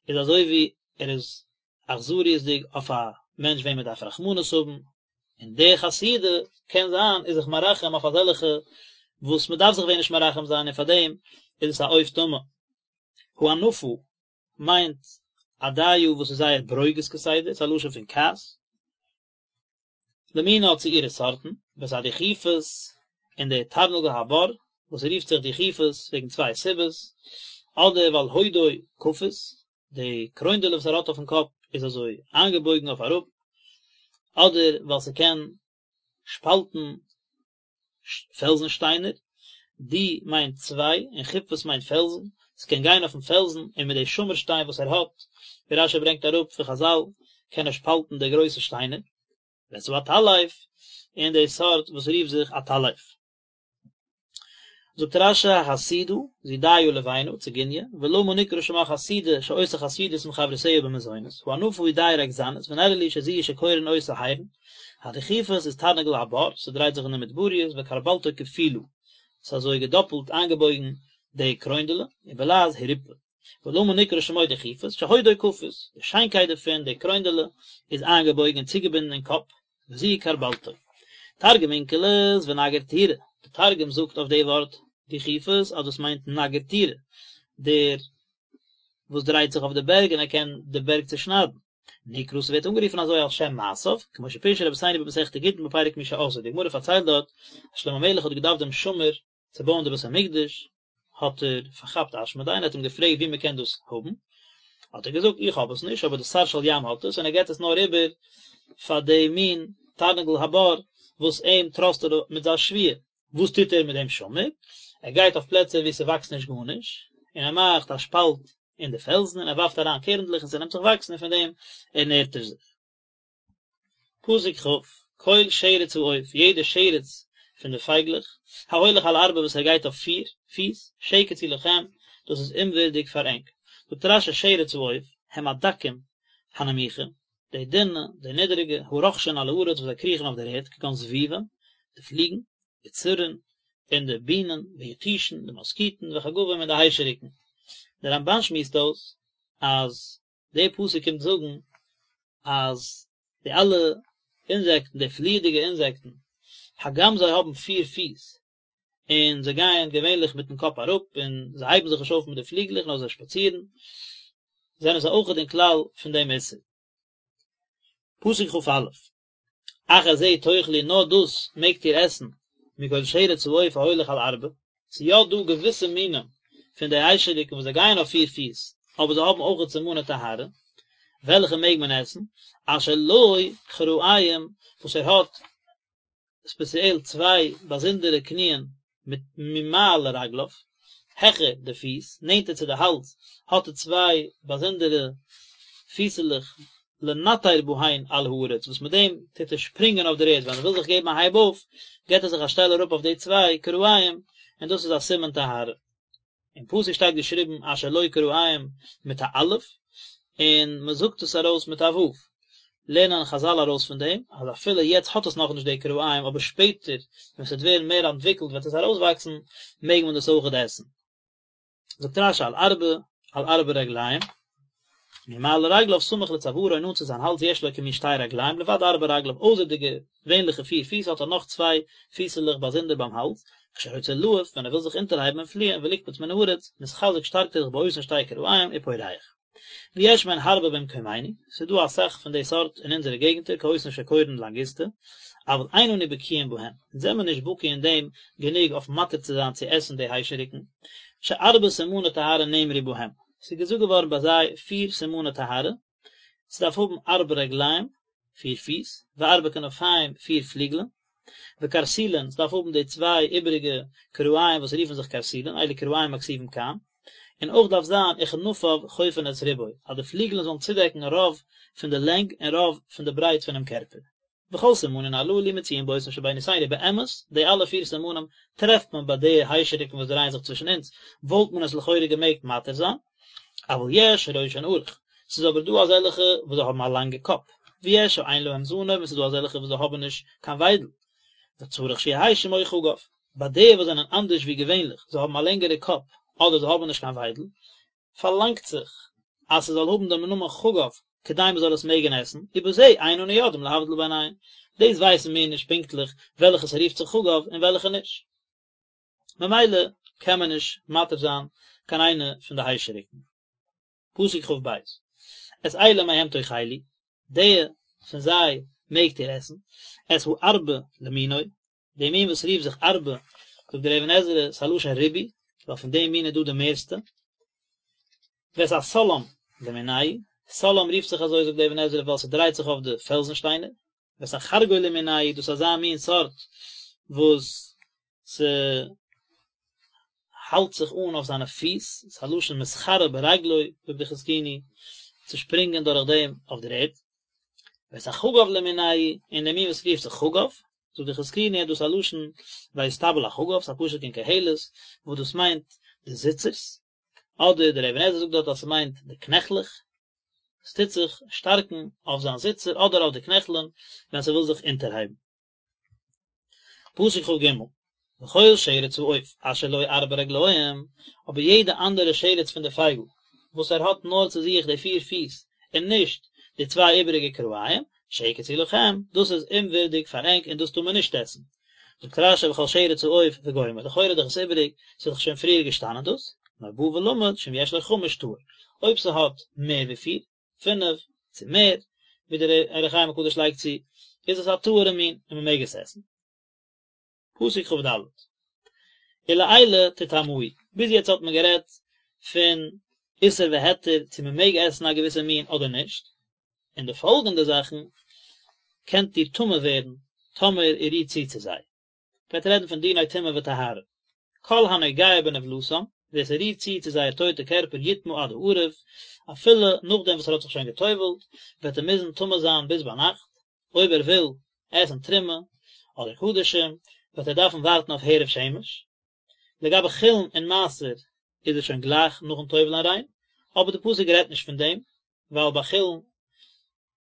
איז אזוי ווי ער איז אכזריות'דיג אויף א מענטש וועם מען דארף רחמנות האבן, און די חסידה קען זיין איז זיך מרחם אויף אזעלכע וואס מען דארף זיך ווען נישט מרחם זיין און פאר דעם איז עס א עוף טמא. האנפה מיינט א דיה וואס איז זייער ברוגז כסדר, ס'איז א לשון פון כעס. למינה צו אירע סארטן, ואת הדוכיפת און די תרנגול הבר, וואס רופט זיך דוכיפת וועגן צוויי סיבות, אדער ווייל הודו כפות, די קרוינדעלע וואס ער האט אויפן קאפ איז אזוי איינגעבויגן אויף אראפ, אדער ווייל ס'קען שפאלטן פעלזן שטיינער. דו מיינט צוויי און חופות מיינט פעלזן, ס'קען גיין אויפן פעלזן און מיט די שמיר שטיין וואס ער האט, ווי רשי ברענגט אראפ פון חזל, קען ער שפאלטן די גרויסע שטיינער. ואת העטלף, און די סארט וואס רופט זיך עטלף. זאגט רשי החסידה, זו דיה לבנה, ציגוניא, ולמה נקרא שמה חסידה שעושה חסידות עם חברותיה במזונות, האנפה היא דיה רגזנית, ונראה לי שזו היא שקורין אותה הירן, הדוכיפת איז תרנגול הבר, ס'דרייט זיך אין די מדבריות, וכרבלתו כפולה, ס'איז אזוי געדאפלט איינגעבויגן די קרוינדעלע, ובלעז הירפה. ולמה נקרא שמו דוכיפת, שהודו כפות, די שיינקייט דערפון, די קרוינדעלע, איז איינגעבויגן און צוגעבינדן אין קאפ, וזו כרבלתו. תרגום אונקלוס ונגר טורא, די תרגום זאגט אויף די ווארט דוכיפת אז דאס מיינט נגר טורא, דער וואס דרייט זיך אויף די בערג און ער קען די בערג צושניידן. נקרא ס'ווערט אנגערופן אזוי על שם מעשיו, כמו שפירשו רבותינו במסכת גיטין בפרק מי שעשאו, די גמרא פארציילט דארט אז שלמה המלך האט געדארפט דעם שמיר צו בויען די בית המקדש, האט ער פארכאפט אשמדאי און האט אים געפרעגט וואו מען קען דאס האבן, האט ער געזאגט איך האב עס נישט אבער די שר של ים האט עס און ער געבט עס נאר איבער פאר די מין תרנגול הבר וואס אים טראסט ער מיט זיין שבועה, וואס טוט ער מיט דעם שמיר? ער גייט אויף פלעצער וואו ס'וואקסט נישט גארנישט און ער מאכט א שפאלט אין די פעלזן און ער ווארפט אריין קערנדלעך און ס'נעמט זיך וואקסן און פון דעם ערנערט ער זיך. פסוק כ', כל שרץ העוף, יעדע שרץ פון די פייגלעך, ההולך על ארבע וואס ער גייט אויף פיר פיס, שקץ הוא לכם, דאס איז אומווערדיג פאר ענק. זאגט רשי שרץ העוף, הם הדקים הנמוכים, די דינע, די נידעריגע, הרוחשין על הארץ וואס זיי קריכן אויף דער ערד, כגון זבובים, די פליגן, וצרעין, און די בינען, ויתושין, די מאסקיטן, וחגבים און די היישעריקן. דער רמבן שמועסט אויס אז דער פסוק קומט זאגן אז די אלע אינזעקטן, די פליעדיגע אינזעקטן, הגם זיי האבן פיר פיס, און זיי גייען געווענליך מיטן קאפ אראפ, און זיי הייבן זיך נישט אויף מיט די פליגלעך נאר זיי שפאצירן, זענען זיי אויכעט אין כלל פון דעם איסור. פסוק כא. אך את זה תאכלו נאר דאס מעגט איר עסן, מכל שרץ העוף ההולך על ארבע, ס'איז יא דא געוויסע מינים פון די היישעריקן וואס זיי גייען אויף פיר פיס, אבער זיי האבן אויכעט סימני טהרה, וועלכע מעג מען עסן, אשר לו כרעים וואס ער האט ספעציעל צוויי באזונדערע קניען מיט ממעל לרגליו, העכער די פיס, נענטער צו די האלז, האט ער צוויי באזונדערע פיסעלעך לנטר בהן על הארץ, וואס מיט דעם טוט ער שפרינגען אויף דער ערד, ווען ער וויל זיך געבן א הייב אויף, געבט ער זיך א שטעל אראפ אויף די צוויי כרעים, און דאס איז א סימן טהרה. אין פסוק שטייט געשריבן אשר לו כרעים מיט א אלף, און מען זאגט עס ארויס מיט א ו'. לערנען חזל ארויס פון דעם, אז אפילו יעצט האט עס נאכנישט די כרעים, אבער שפעטער ווען ס'וועט ווערן מער אנטוויקלט וועט עס ארויסוואקסן, מעג מען דאס אויכעט עסן. זאגט רשי על ארבע, על ארבע רגליים, ממעל לרגליו סמוך לצווארו נאנט צו זיין האלז יש לו כמין שתי רגליים לבד ארבע רגליו אויסער די געווענליכע פיר פיס האט ער נאך צוויי פיסעלעך באזונדער ביים האלז, כשרוצה לעוף ווען ער וויל זיך אונטערהייבן און פליען ולקפוץ מן הארץ, מתחזק שטארקט ער זיך באותן שתי כרעים ופורח. ויש מהן הרבה במקומינו, ס'איז דא אסאך פון די סארט אין אונזערע געגנטער כאותן שקורין לנגוסטא, אבל אין אנו בקיאין בהן, אונז זעמיר נישט בקי אין דעם גענוג אויף מתיר צו זיין צו עסן די היישעריקן, שארבע סימני טהרה נאמרו בהם, ס'איז געזאגט געווארן ביי זיי פיר סימני טהרה, ס'דארף האבן ארבע רגליים, פיר פיס, וארבע כנפיים, פיר פליגלען, וקרסולין, ס'דארף האבן די צוויי איבעריגע כרעים וואס רופן זיך קרסולין, אלו כרעים הכתובים כאן, און אויך דארף זיין וכנפיו חופין את רובו, אז די פליגלען זאלן צודעקן רוב פון די לענג און רוב פון די ברייט פונעם קערפער. וכל סימנין הללו מצויין באותן שבינותינו באמת, די אלע פיר סימנים טרעפט מען ביי די היישעריקן וואס דרייען זיך צווישן אונז, וואלט מען עס לכאורה געמעגט מתיר זיין, אבל יש שראשן ארוך, ס'איז אבער דא אזעלכע וואס זיי האבן א לאנגע קאפ, ויש שאין להם זנב און ס'איז דא אזעלכע וואס זיי האבן נישט קיין וויידל, וצריך שיהא שמו חגב, ביי די וואס זענען אנדערש ווי געווענליך, זיי האבן א לענגערע קאפ אדער זיי האבן נישט קיין וויידל, פארלאנגט זיך אז ס'זאל האבן דעם נאמען חגב כדי מ'זאל עס מעגן עסן, ובזה אין אנו יודעים להבדיל ביניהם, דאס ווייסן מיר נישט פונקטליך וועלכע ס'רופט זיך חגב און וועלכע נישט. ממילא קען מען נישט מתיר זיין קיין איינע פון די היישעריקן. פסוק כ"ב, את אלה מהם תאכלו, די פון זיי מעגט איר עסן, את הארבה למינו, די מין וואס רופט זיך ארבה, זאגט דער אבן עזרא, ס'איז א לשון ריבוי, ווייל פון דעם מין איז דא די מערסטע. ואת הסלעם למינהו, סלעם רופט זיך אזוי זאגט דער אבן עזרא ווייל ס'דרייט זיך אויף די פעלזן שטיינער. ואת החרגול למינהו, דאס איז אזא מין סארט וואס ס'. האלט זיך אן אויף זיינע פיס, ס'איז א לשון מתחרה ברגלו, זאגט די חזקוני, צו שפרינגען דורך דעם אויף דער ערד. ואת החגב למינהו, און דער מין וואס רופט זיך חגב, זאגט די חזקוני אז דאס איז א לשון ויסתבל החגב, ס'איז א פסוק אין קהלת, וואס דאס מיינט די זיצערס, אדער דער אבן עזרא זאגט דארט אז ס'מיינט די קנעכלעך, עס טוט זיך שטארקן אויף זיין זיצער אדער אויף די קנעכלען ווען ס'וויל זיך אונטערהייבן. פסוק כג, וכל שרץ העוף אשר לו ארבע רגליים, אבער יעדע אנדערע שרץ פון די פייגל וואס ער האט נאר צו זיך די פיר פיס און נישט די צוויי איבעריגע כרעים, שקץ הוא לכם, דאס איז אומווירדיג פאר ענק און דאס טאר מען נישט עסן. זאגט רשי וכל שרץ העוף וגומר, לכאורה איז דאך עס איבעריג, ס'איז דאך שוין פריער געשטאנען דאס, נאר בא ולמד שאם יש לו חמש טהור, אויב ס'האט מער ווי פיר, פינף, צו מער, ווי דער אור החיים הקדוש לייגט צו, איז עס א טהור'ע מין און מ'מעג עס עסן. פסוק כד, ולאלה תטמאו, ביז יעצט האט מען גערעדט פון איסור והיתר צו מען מעג עסן א געוויסע מין אדער נישט, און די פאלגענדע זאכן קענט איר טמא ווערן טאמער איר רירט צו צו זיי. גייט רעדן פון דיני טומאה וטהרה. כל הנוגע בנבלתם, ווער ס'רירט צו צו זייער טויטע קערפער יטמא עד הערב, אפילו נאכדעם וואס ער האט זיך שוין גע'טובל'ט, וועט ער מוזן טמא זיין ביז ביינאכט, אויב ער וויל עסן תרומה אדער קדשים וועט ער דארפן ווארטן אויף הערב שמש. לגבי חולין און מעשר איז עס שוין גלייך נאכן טובל'ען ריין, אבער די פסוק רעדט נישט פון דעם, ווייל ביי חולין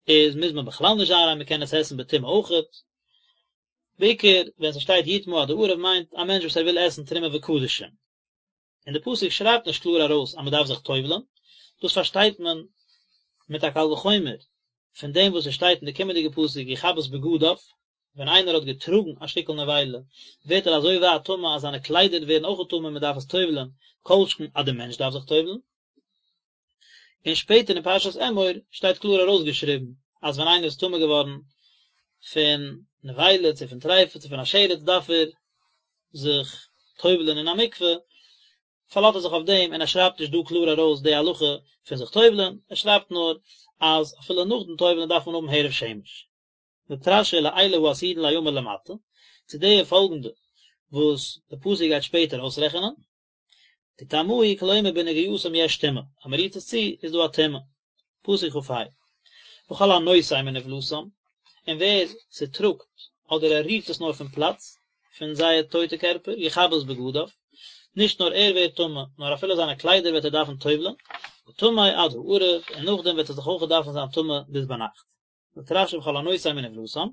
איז מוז מען בכלל נישט זיין ריין מען קען עס עסן בטומאה אויכעט. בעיקר ווען ס'שטייט יטמא עד הערב מיינט א מענטש וואס ער וויל עסן תרומה וקדשים. און די פסוק שרייבט נישט קלאר ארויס אז מען דארף זיך טובל'ן, דאס פארשטייט מען מיט א קל וחומר פון דעם וואס עס שטייט אין די קומענדיגע פסוק יכבס בגדיו, ווען איינער האט געטראגן א שטיקל נבילה ווערט ער אזוי ווייט טמא אז זיינע קליידער ווערן אויך טמא און מען דארף עס טובל'ן, כל שכן אז דער מענטש דארף זיך טובל'ן. און שפעטער אין פרשת אמור שטייט קלאר ארויסגעשריבן אז ווען איינער איז טמא געווארן פון נבילה צו פון טריפה צו פון א שרץ דארף ער זיך טובל'ען אין א מקווה, פארלאזט ער זיך אויף דעם און ער שרייבט נישט דא קלאר ארויס די הלכה פון זיך טובל'ען, ער שרייבט נאר אז אפילו נאכדעם טובל'ען דארף מען האבן הערב שמש. זאגט רשי לאלה העתידין ליאמר למטה, צו די פאלגענדע וואס די פסוק גייט שפעטער אויסרעכענען, תטמאו כלומר בנגיעתם יש טומאה, אז מען רירט עס צו איז דא א טומאה. פסוק כ"ה, וכל הנושא מנבלתם, און ווער ס'טראגט אדער ער רירט עס נאר פון פלאץ פון זייער טויטע קערפער, יכבס בגדיו, נישט נאר ער ווערט טמא, נאר אפילו זיינע קליידער וועט ער דארפן טובל'ען, וטמא עד הערב, און נאכדעם וועט ער זיך אויך דארפן זיין טמא ביז ביינאכט. זאגט רשי וכל הנושא מנבלתם,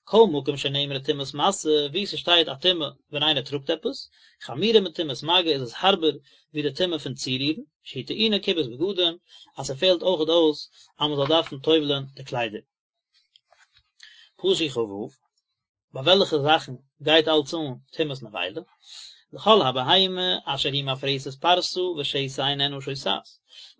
כל מקום שנאמרה טומאת משא, וואו ס'שטייט א טומאה ווען איינער טראגט עפעס, חמורה מטומאת מגע איז עס הארבער ווי די טומאה פון צורירן, שהיא טעונה כיבוס בגדים, אז ס'פעלט אויכעט אויס אז מ'זאל דארפן טובל'ען די קליידער. פסוק כ"ו, ביי וועלכע זאכן גייט אלץ אן טומאת נבילה? לכל הבהמה אשר היא מפרסת פרסה ושסע איננה שוסעת,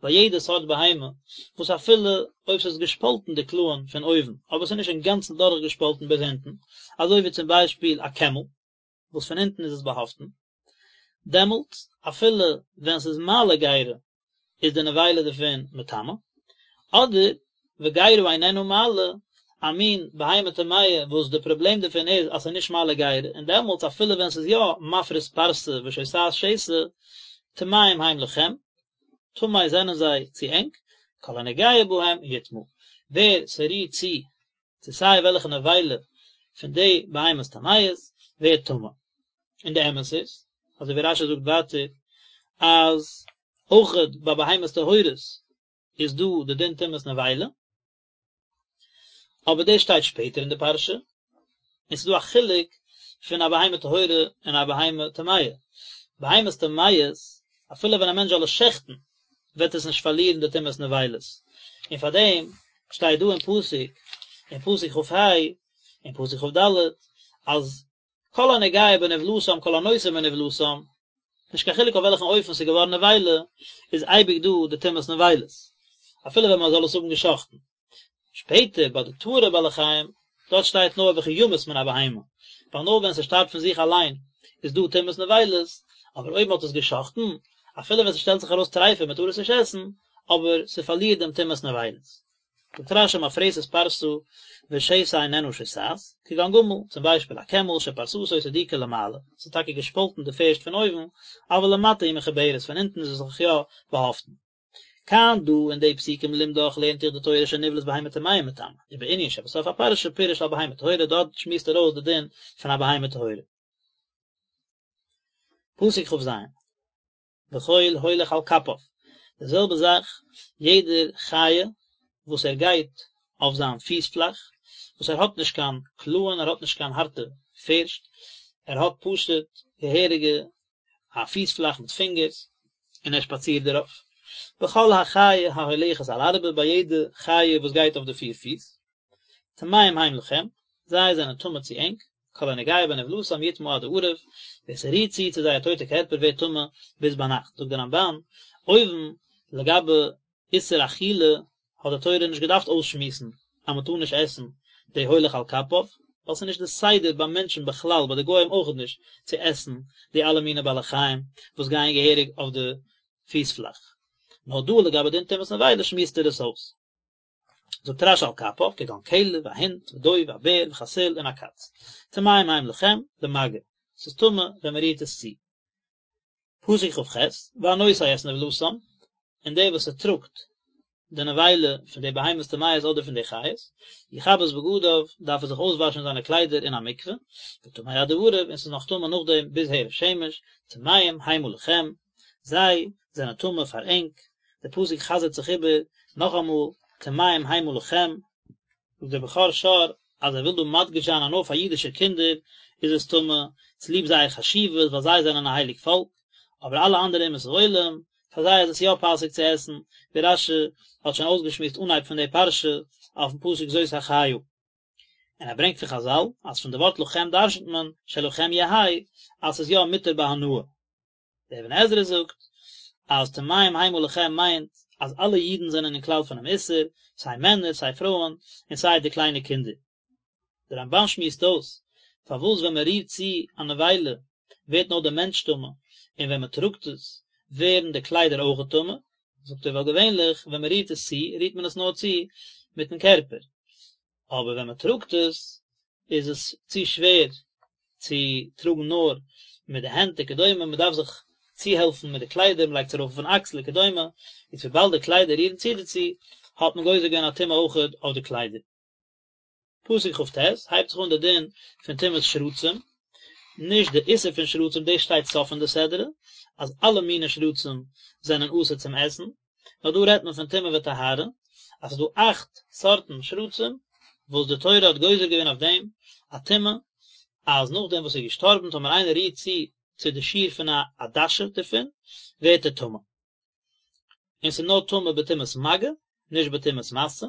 ביי יעדע סארט בהמה וואס אפילו אויב ס'איז געשפאלטן די קלאען פון אויבן אבער ס'איז נישט אינגאנצן דורכגעשפאלטן ביז אונטן, אזוי ווי צום ביישפיל א קעמל וואס פון אונטן איז עס באהאפטן, דעמאלט אפילו ווען ס'איז מעלה גרה איז די נבילה דערפון מטמא, אדער וגרה איננה מעלה, א מין בהמה טמאה וואס די פראבלעם דערפון איז אז ס'איז נישט מעלה גרה, און דעמאלטס אפילו ווען ס'איז יא מפריס פרסה ושוסעת שסע, טמאים הם לכם, טמא זענען זיי צו ענק, כל הנוגע בהם יטמא, ווער ס'רירט צו צו סיי וועלכע נבילה פון די בהמות טמאות ווערט טמא. און די אמת איז, אזוי ווי רשי זאגט ווייטער, אז אויכעט ביי בהמות טהורות איז דא די דין טומאת נבילה, אבער דאס שטייט שפעטער אין די פרשה, און ס'איז דא א חילוק פון א בהמה טהורה און א בהמה טמאה. בהמות טמאות, אפילו ווען א מענטש זאל עס שעכטן, וועט עס נישט פארלירן די טומאת נבילות, און פאר דעם שטייט דא אין פסוק, אין פסוק כ"ה, אין פסוק כ"ד, אז כל הנוגע בנבלתם כל הנושא מנבלתם, נישט קיין חילוק אויף וועלכן אופן ס'איז געווארן נבילה, איז אייביג דא די טומאת נבילות, אפילו ווען מען זאל עס האבן געשחט'ן. שפעטער ביי די טהור'ע בעלי חיים, דארט שטייט נאר וכי ימות מן הבהמה, ווייל נאר ווען ס'שטארבט פון זיך אליין איז דא טומאת נבילות, אבער אויב מ'האט עס גע'שחט'ן, אפילו ווען ס'שטעלט זיך ארויס טריפה מ'טאר עס נישט עסן, אבער ס'פארלירט דעם טומאת נבילות. זאגט רש"י מפרסת פרסה ושסה איננה שוסעת, כגון גמל, צום ביישפיל א קעמל שפרסתו סדוקה למעלה, ס'איז טאקע געשפאלטן די פערשט פון אויבן, אבל למטה היא מחוברת, פון אונטן איז עס זיך יא באהאפטן. כאן דא אין די פסוקים לימדך לערנט דיך די תורה שנבלת בהמה טמאה מטמא, ובענין שבסוף הפרשה פירש על בהמה טהורה דארט שמועסט ער אויס די דין פון א בהמה טהורה. פסוק כ"ז. וכל הולך על כפיו, די זעלבע זאך יעדער חיה וואס ער גייט אויף זיין פיס פלאך, וואס ער האט נישט קיין קלאען, ער האט נישט קיין הארטע פערשט, ער האט פשוט געהעריגע א פיס פלאך מיט פינגערס, און ער שפאצירט דערויף. בכל החיה ההולכת על ארבע, ביי יעדע חיה וואס גייט אויף די פיר פיס, טמאים הם לכם, זיי זענען טמא צו ענק, כל הנוגע בנבלתם יטמא עד הערב, ווער ס'רירט צו צו זייער טויטע קערפער ווערט טמא ביז ביינאכט, זאגט דער רמב"ן, אויבן לגבי איסור אכילה האט די תורה נישט געדארפט אויסשמועסן אז מען טאר נישט עסן די הולך על כפיו, ווייל ס'איז נישט די סדר ביי מענטשן בכלל, ביי די גוים אויכעט נישט, צו עסן די אלע מיני בעלי חיים וואס גייען געהעריג אויף די פיס פלאך. נאר דא לגבי דין טומאת נבילה שמועסט ער עס אויס. זאגט רש"י על כפיו, כגון כלב, א הונט, ודוב, א בער, וחתול, און א קאץ. טמאים הם לכם, למגע. ס'איז טמא ווען מ'רירט עס צו. פסוק כ"ח, והנושא את נבלתם, און דער וואס ס'טראגט די נבילה פון די בהמות טמאות אדער פון די חיות, יכבס בגדיו, דארף ער זיך אויסוואשן זיינע קליידער אין א מקווה, וטמא עד הערב, און ס'איז נאך טמא נאכדעם ביז הערב שמש, טמאים המה לכם, זיי זענען טמא פאר ענק, דער פסוק חזר'ט זיך איבער נאכאמאל, טמאים המה לכם, זאגט דער בכור שור אז ער וויל דא מדגיש זיין אז נאר פאר אידישע קינדער איז עס טמא, צוליב זייער חשיבות ווייל זיי זענען א הייליג פאלק, אבער אלע אנדערע אומות העולם, פאר זיי איז עס יא פאסיג צו עסן, ווי רש"י האט שוין אויסגעשמועסט אנהייב פון די פרשה אויפן פסוק זאת החיה. און ער ברענגט פון חז"ל אז פון די ווארט לכם דרשנ'ט מען שלכם יהא אז ס'איז יא מותר בהנאה. דער אבן עזרא זאגט אז טמאים המה לכם מיינט אז אלע אידן זענען אין כלל פונעם איסור, סיי מענער סיי פרויען, און סיי די קליינע קינדער. דער רמב"ן שמועסט אויס פארוואס ווען מען רירט צו א נבילה ווערט נאר דער מענטש טמא, און ווען מען טראגט עס ווערן די קליידער אויכעט טמא, זאגט ער ווייל געווענליך ווען מען רירט עס צו רירט מען עס נאר צו מיטן קערפער, אבער ווען מען טראגט עס איז עס צו שווער צו טראגן נאר מיט די הענט וכדומה, מען דארף זיך צוהעלפן מיט די קליידער, מען לייגט עס ארויף אויפן אקסל וכדומה, איז וויבאלד די קליידער רירן צו דערצו, האט מען גוזר געווען א טומאה אויכעט אויף די קליידער. פסוק כ"ט, הייבט זיך אן די דין פון טומאת שרצים, נישט די איסור פון שרצים, דאס שטייט סוף פון די סדרה, אז אלע מיני שרצים זענען אסור צום עסן, נאר דא רעדט מען פון טומאה וטהרה, אז ס'איז דא אכט סארטן שרצים וואס די תורה האט גוזר געווען אויף דעם א טומאה, אז נאכדעם וואס ער איז געשטארבן טאמער איינער רירט צו צו די שיעור פון א עדשה דערפון, ווערט ער טמא. און ס'איז נאר טמא בטומאת מגע, נישט בטומאת משא.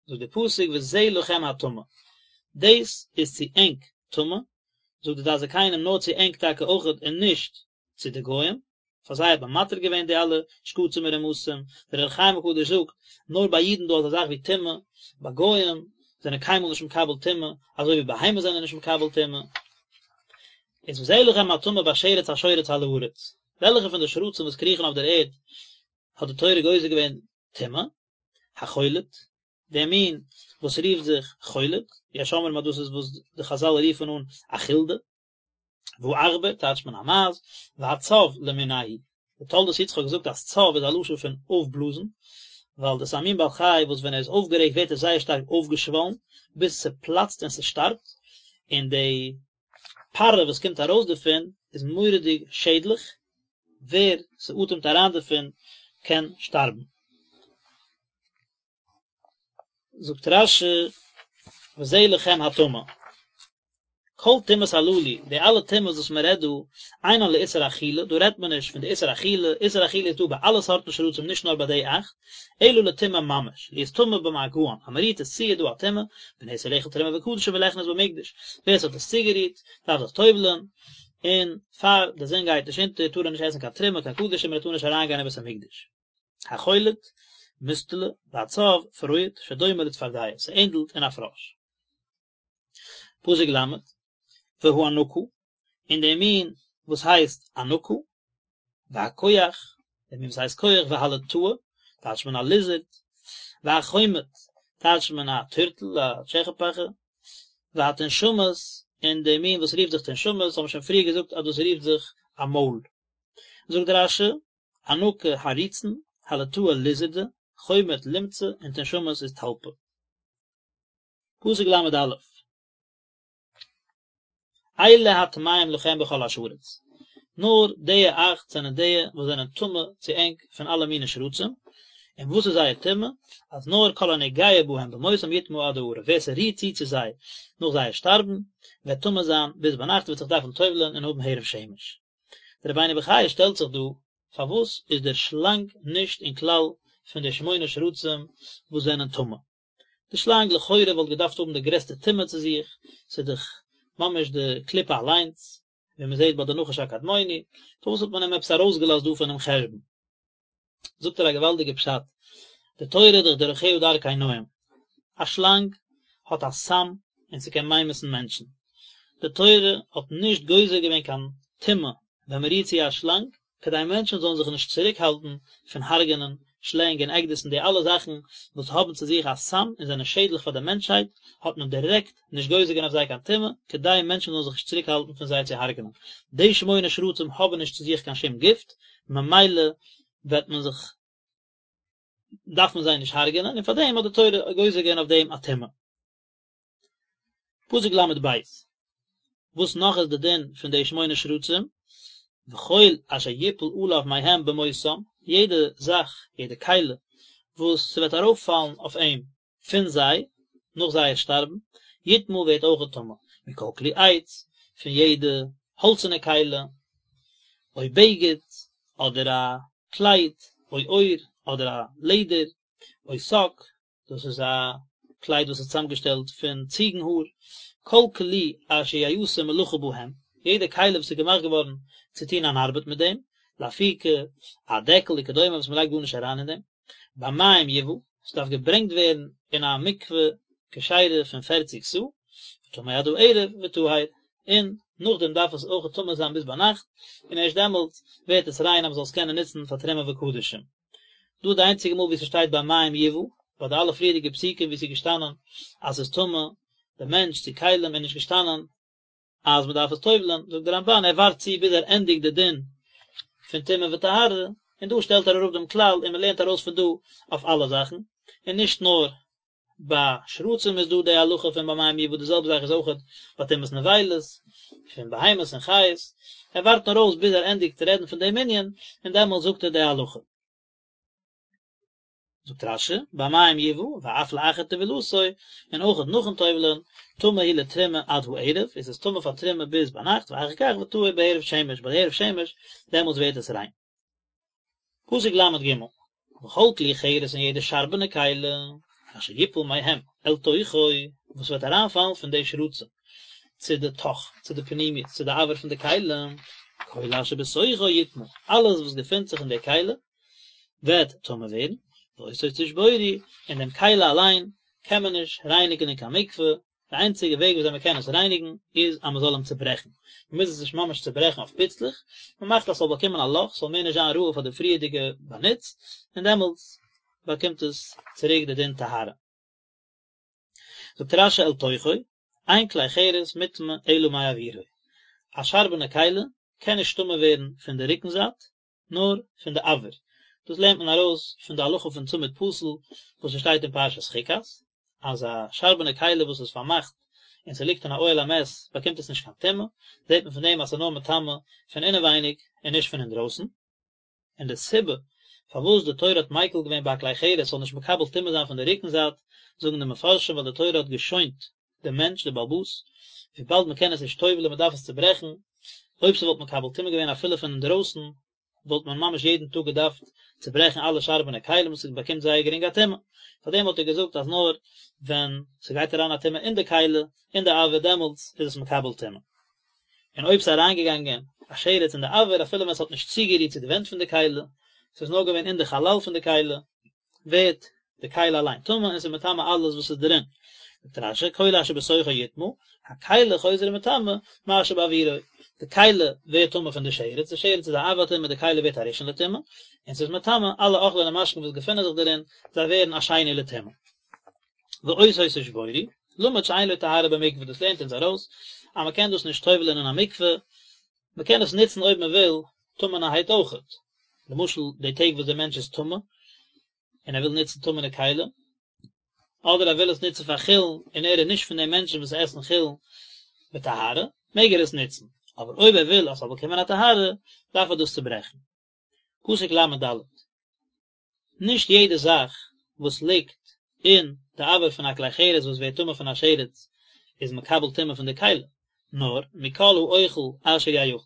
זאגט דער פסוק וזה לכם הטמא, דאס איז צו ענק טמא, זאגט די דעת זקנים נאר צו ענק טאקע אויכעט און נישט צו די גוים, פאר זיי האט מען מתיר געווען די אלע שקצים און רמשים, דער אור החיים הקדוש זאגט, נאר ביי אידן דא אזא זאך ווי טומאה, ביי גוים זענען קיינמאל נישט מקבל טומאה, אזוי ווי בהמות זענען נישט מקבל טומאה. איז וזה לכם הטמא בשרץ השורץ על הארץ, וועלכע פון די שרצים וואס קריכן אויף דער ערד האט די תורה גוזר געווען טומאה? החולד, דער מין וואס רופט זיך חולד, יש אומרים אז דאס איז וואס די חזל רופן אן א חולדה, והעכבר טייטשט מען א מייז, והצב למינהו, די תולדות יצחק זאגט אז צב איז א לשון פון אויפבלאזן, ווייל דאס איז א מין בעל חי וואס ווען ער איז אויפגערעגט ווערט ער זייער שטארק אויפגעשוואלן ביז ס'פלאצט און ס'שטארבט, און די פארע וואס קומט ארויס דערפון איז מורא'דיג שעדליך, ווער ס'אטעמט אריין דערפון קען שטארבן. זאגט רש"י וזה לכם הטמא. כל טומאות הללו, די אלע טומאות וואס מען רעדט דא, אינן לאיסור אכילה, דא רעדט מען נישט פון די איסור אכילה, איסור אכילה איז דא ביי אלע סארטן שרצים נישט נאר ביי די אכט, אלא לטומאה ממש, להיות טמא במגען, אז מען רירט עס צו איז דא א טומאה, ונאסר לאכול תרומה וקדשים ולכנוס במקדש, ווער עס האט עס צוגערירט דארף זיך טובל'ען, און פאר די זון גייט נישט אונטער טאר ער נישט עסן קיין תרומה קיין קדשים און ער טאר נישט אריינגיין אין בית המקדש. החולד, מוסטלע, והצב, פרועט, שדומה לצפרדע, ס'ענדלט אין א פראש. פסוק ל', והאנקה, און דער מין וואס הייסט אנקה, והכוח, דער מין וואס הייסט כח, והלטאה, טייטשט מען א ליזערד, והחומט טייטשט מען א טורטל, א טשעכעפאכע, והתנשמת, און די מין וואס רופט זיך תנשמת האבן מיר שוין פריער געזאגט אז דאס רופט זיך א מויל. זאגט רש"י, ענקא הריצן, הלטאה ליזערדע, חומט לומצע, און תנשמת איז טלפא. פסוק ל"א. אלה הטמאים לכם בכל השרץ, נאר די אכט זענען די וואס זענען טמא צו ענק פון אלע מיני שרצים, און וואס איז זייער טומאה? אז נאר כל הנוגע בהם במותם יטמא עד הערב, ווער ס'רירט צו צו זיי נאך זייער שטארבן, וועט טמא זיין ביז ביינאכט וועט זיך דארפן טובל'ען און האבן הערב שמש. דער רבינו בחיי שטעלט זיך דא, פארוואס איז דער שלאנג נישט אין כלל פון די שמונה שרצים וואס זענען טמא? די שלאנג לכאורה וואלט געדארפט האבן די גרעסטע טומאה צו זיך, ס'איז דאך ממש די קליפה אליינס, ווי מען זעט ביי די נחש הקדמוני, פארוואס האט מען אים עפעס ארויסגעלאזט דא פונעם חשבון? זאגט ער א געוואלדיגע פשט, די תורה איז דאך דרכיה דרכי נועם, א שלאנג האט א סם און ס'קען ממית'ן מענטשן, די תורה האט נישט גוזר געווען קיין טומאה ווען מ'רירט צו א שלאנג, כדי מענטשן זאלן זיך נישט צוריקהאלטן פון הרג'נען שלענג און עקדיש און די אלע זאכן וואס האבן צו זיך א סם און זענען שעדליך פאר די מענטשהייט, האט מען דירעקט נישט גוזר געווען אויף זיי קיין טומאה, כדי מענטשן זאלן זיך נישט צוריקהאלטן פון זיי צו הרג'נען. די שמונה שרצים האבן נישט צו זיך קיין שום גיפט, ממילא וועט מען זיך דארף מען זיי נישט הרג'נען, און פאר דעם האט די תורה גוזר געווען אויף דעם א טומאה. פסוק ל"ב, וואס נאך איז די דין פון די שמונה שרצים? וכל אשר יפול עליו מהם במותם, יעדע זאך, יעדע כלי, וואס ס'וועט ארויפפאלן אויף אים פון זיי, נאך זייער שטארבן, יטמא ווערט אויכעט טמא, מכל כלי עץ, פון יעדע האלצענע כלי, או בגד, אדער א קלייד, או עור, אדער א לעדער, או שק, דאס איז א קלייד וואס איז צוזאמגעשטעלט פון ציגן האר, כל כלי אשר יעשה מלאכה בהם, יעדע כלי וואס איז געמאכט געווארן צו טון אן ארבעט מיט דעם, לאפוקי א דעקל וכדומה וואס מען לייגט גארנישט אריין אין דעם, במים יובא, עס דארף געברענגט ווערן אין א מקווה כשרה פון פערציג סאה, וטמא עד הערב וטהר, און נאכדעם דארף עס אויך טמא זיין ביז ביינאכט, און ערשט דעמאלט ווערט עס ריין אז מען זאל עס קענען נוצן פאר תרומה וקדשים. דא איז די איינציגע מאל ווי ס'שטייט במים יובא, ביי די אלע פריערדיגע פסוקים ווי ס'איז געשטאנען אז ס'איז טמא די מענטש צו כלים איז נישט געשטאנען אז מ'דארף עס טובל'ען, זאגט די רמב"ן ער ווארט צו ביז ער ענדיגט די דין פון טומאה וטהרה, און דא שטעלט ער אראפ דעם כלל און מ'לערנט ארויס פון דא אויף אלע זאכן, און נישט נאר ביי שרצים איז דא די הלכה פון במים יובא די זעלבע זאך איז אויכעט ביי טומאת נבילות פון בהמות און חיות, ער ווארט נאר אויס ביז ער ענדיגט רעדן פון דעם ענין און דעמאלטס זאגט ער די הלכה. זאגט רש"י, במים יובא ואף לאחר טבילתו, און אויכעט נאכן טובל'ען, טמא הוא לתרומה עד הערב, איז עס טמא פאר תרומה ביז ביינאכט, ואחר כך וטהור בהערב שמש, ביי די הערב שמש, דעמאלטס ווערט עס ריין. פסוק ל"ג, וכל כלי חרס און יעדע שארבענע כלי, אשר יפול מהם אל תוכו, וואס וועט אריינפאלן פון די שרצים צו די תוך, צו די פנימיות, צו די אויר פון די כלי, כל אשר בתוכו יטמא, אלעס וואס געפינט זיך אין די כלי, וועט טמא ווערן, ואותו תשבורו, און דעם כלי אליין קען מען נישט רייניגן אין קיין מקווה, די איינציגע וועג וויאזוי מען קען עס רייניגן איז אז מען זאל אים צוברעכן, מען מוז עס נישט ממש צוברעכן אויף פיצלעך, מען מאכט אז ס'זאל באקומען א לאך, ס'זאל מער נישט זיין ראוי פאר די פריערדיגע באנוץ, און דעמאלטס באקומט עס צוריק די דין טהרה. זאגט רש"י אל תוכו, אין כלי חרס מוטמא אלא מאוירו, א שארבענע כלי קען נישט טמא ווערן פון די רוקן זייט, נאר פון די אויר, דאס לערנט מען ארויס פון די הלכה פון צמיד פתיל וואס עס שטייט אין פרשת חוקת, אז א שארבענע כלי וואס איז פארמאכט און ס'ליגט אין א אוהל המת באקומט עס נישט קיין טומאה, זעט מען פון דעם אז ס'איז נאר מטמא פון אינעווייניג און נישט פון אינדרויסן. און די סיבה פארוואס די תורה האט מיקל געווען ביי א כלי חרס זאל נישט מקבל טומאה זיין פון די רוקן זייט, זאגן די מפרשים ווייל די תורה האט געשוינט דעם מענטש, דער בעל הבית, וויבאלד מען קען עס נישט טובל'ען מען דארף עס צוברעכן, אויב ס'וואלט מקבל טומאה געווען אפילו פון אינדרויסן, וואלט מען ממש יעדן טאג געדארפט צוברעכן אלע שארבענע כלים וואס ס'באקומט זייער גרינג א טומאה, פארדעם האט ער געזאגט אז נאר ווען ס'גייט אריין א טומאה אין די כלי, אין די אויר דעמאלטס איז עס מקבל טומאה. און אויב ס'איז אריינגעגאנגען א שרץ אין די אויר אפילו ווען ס'האט נישט צוגערירט צו די ווענט פון די כלי, ס'איז נאר געווען אין די חלל פון די כלי, ווערט די כלי אליין טמא און ס'איז מטמא אלעס וואס איז דערין. זאגט רש"י, כל אשר בתוכו יטמא, הכלי חוזר ומטמא מה שבאוירו, די כלי ווערט טמא פון די שרץ, די שרץ איז א אב הטומאה, די כלי ווערט א ראשון לטומאה, און ס'איז מטמא אלע אוכלים און משקין וואס געפינען זיך דערין, זיי ווערן א שני לטומאה. ואותו תשבורו, למד שאין לו טהרה במקווה, דאס לערנט אונז ארויס אז מען קען דאס נישט טובל'ען אין א מקווה, מען קען עס נוצן אויב מען וויל טמא'נערהייט אויכעט, למשל די טעג וואס דער מענטש איז טמא און ער וויל נוצן טמא'נע כלים, אדער ער וויל עס נוצן פאר חולין און ער איז נישט פון די מענטשן וואס עסן חולין בטהרה, מעג ער עס נוצן, אבער אויב ער וויל אז ס'זאל באקומען א טהרה, דארף ער דאס צוברעכן. פסוק ל"ד. נישט יעדע זאך וואס ליגט אין די אויר פון א כלי חרס וואס ווערט טמא פון א שרץ איז מקבל טומאה פון די כלי, נאר מכל האוכל אשר יאכל,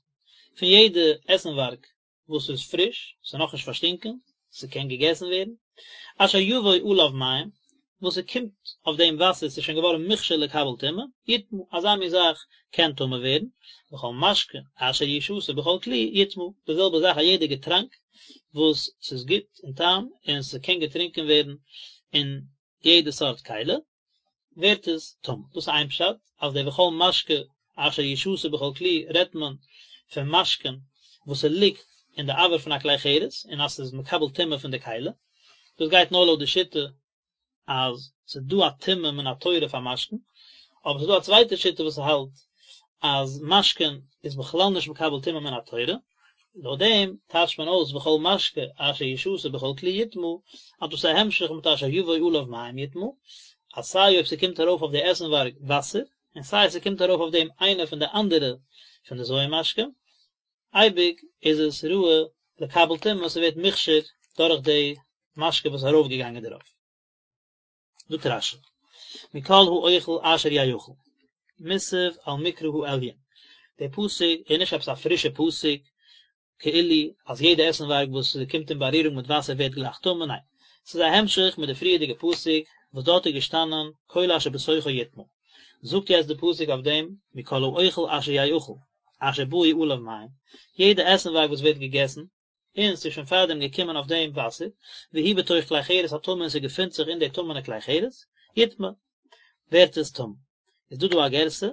פון יעדע עסנווארג וואס איז פריש, ס'איז נאכנישט פארשטינקען, ס'קען געגעסן ווערן, אשר יבוא עליו מים, וואס ס'קומט אויף דעם וואסער, ס'איז שוין געווארן מוכשר לקבל טומאה, יטמא, אזא מין זאך קען טמא ווערן, וכל משקה אשר ישתה בכל כלי יטמא, די זעלבע זאך א יעדע געטראנק וואס ס'איז גוט אין טעם און ס'קען געטרינקען ווערן אין יעדע סארט כלי, ווערט עס טמא. דאס איז איין פשט, אז די וכל משקה אשר ישתה בכל כלי רעדט מען פון משקין וואס ס'ליגט אין די אויר פון א כלי חרס און אז ס'איז מקבל טומאה פון די כלי, דאס גייט נאר לויט די שיטה אז ס'איז דא א טומאה מן התורה פאר משקין, אבער ס'איז דא א צווייטע שיטה וואס האלט אז משקין איז בכלל נישט מקבל טומאה מן התורה, לויט דעם טייטשט מען אויס וכל משקה אשר ישתה בכל כלי יטמא, אז דאס איז א המשך מיט אשר יבוא עליו מים יטמא, אז סיי אויב ס'קומט ארויף אויף די עסנווארג וואסער, און סיי ס'קומט ארויף אויף דעם איינע פון די אנדערע פון די ז' משקים, אייביג איז עס ראוי לקבל טומאה, ס'ווערט מוכשר דורך די משקה וואס איז ארויפגעגאנגען דערויף. זאגט רש"י, מכל האוכל אשר יאכל, מוסב על מקרא העליון, דער פסוק איז נישט עפעס א פרישע פסוק, כאילו אז יעדע עסנווארג וואס קומט אין בארירונג מיט וואסער ווערט גלייך טמא, ניין, ס'איז א המשך מיט די פריערדיגע פסוק וואס דארט איז געשטאנען כל אשר בתוכו יטמא, זאגט יעצט די פסוק אויף דעם מכל האוכל אשר יאכל, אשר באו עליו מים, יעדע עסנווארג וואס ווערט געגעסן, און ס'איז שוין פארדעם געקומען אויף דעם וואסער, והוא בתוך כלי חרס הטמא און ס'געפינט זיך אין די טמא'נע כלי חרס, יטמא, ווערט עס טמא. איז דא דא א גירסא,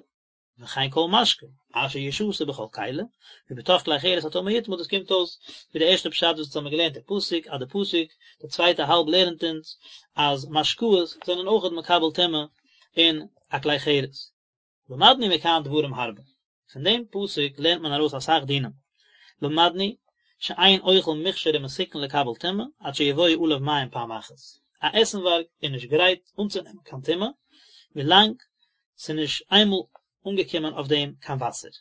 וכן כל משקה, אשר ישתה בכל כלי, והוא בתוך כלי חרס הטמא יטמא, דאס קומט אויס ווי די ערשטע פשט וואס אונז האבן געלערנט אין פסוק, אז די פסוק, די צווייטע האלב לערנט אונז, אז משקאות זענען אויכעט מקבל טומאה אין א כלי חרס. למדנו מכאן דברים הרבה, פון דעם פסוק לערנט מען ארויס אסאך דינים, למדנו שאין אוכל מוכשר ומתוקן לקבל טומאה עד שיבואו עליו מים פעם אחת, א עסנווארג איז נישט גרייט אנצונעמען קיין טומאה ווילאנג ס'איז נישט איינמאל אנגעקומען אויף דעם קיין וואסער,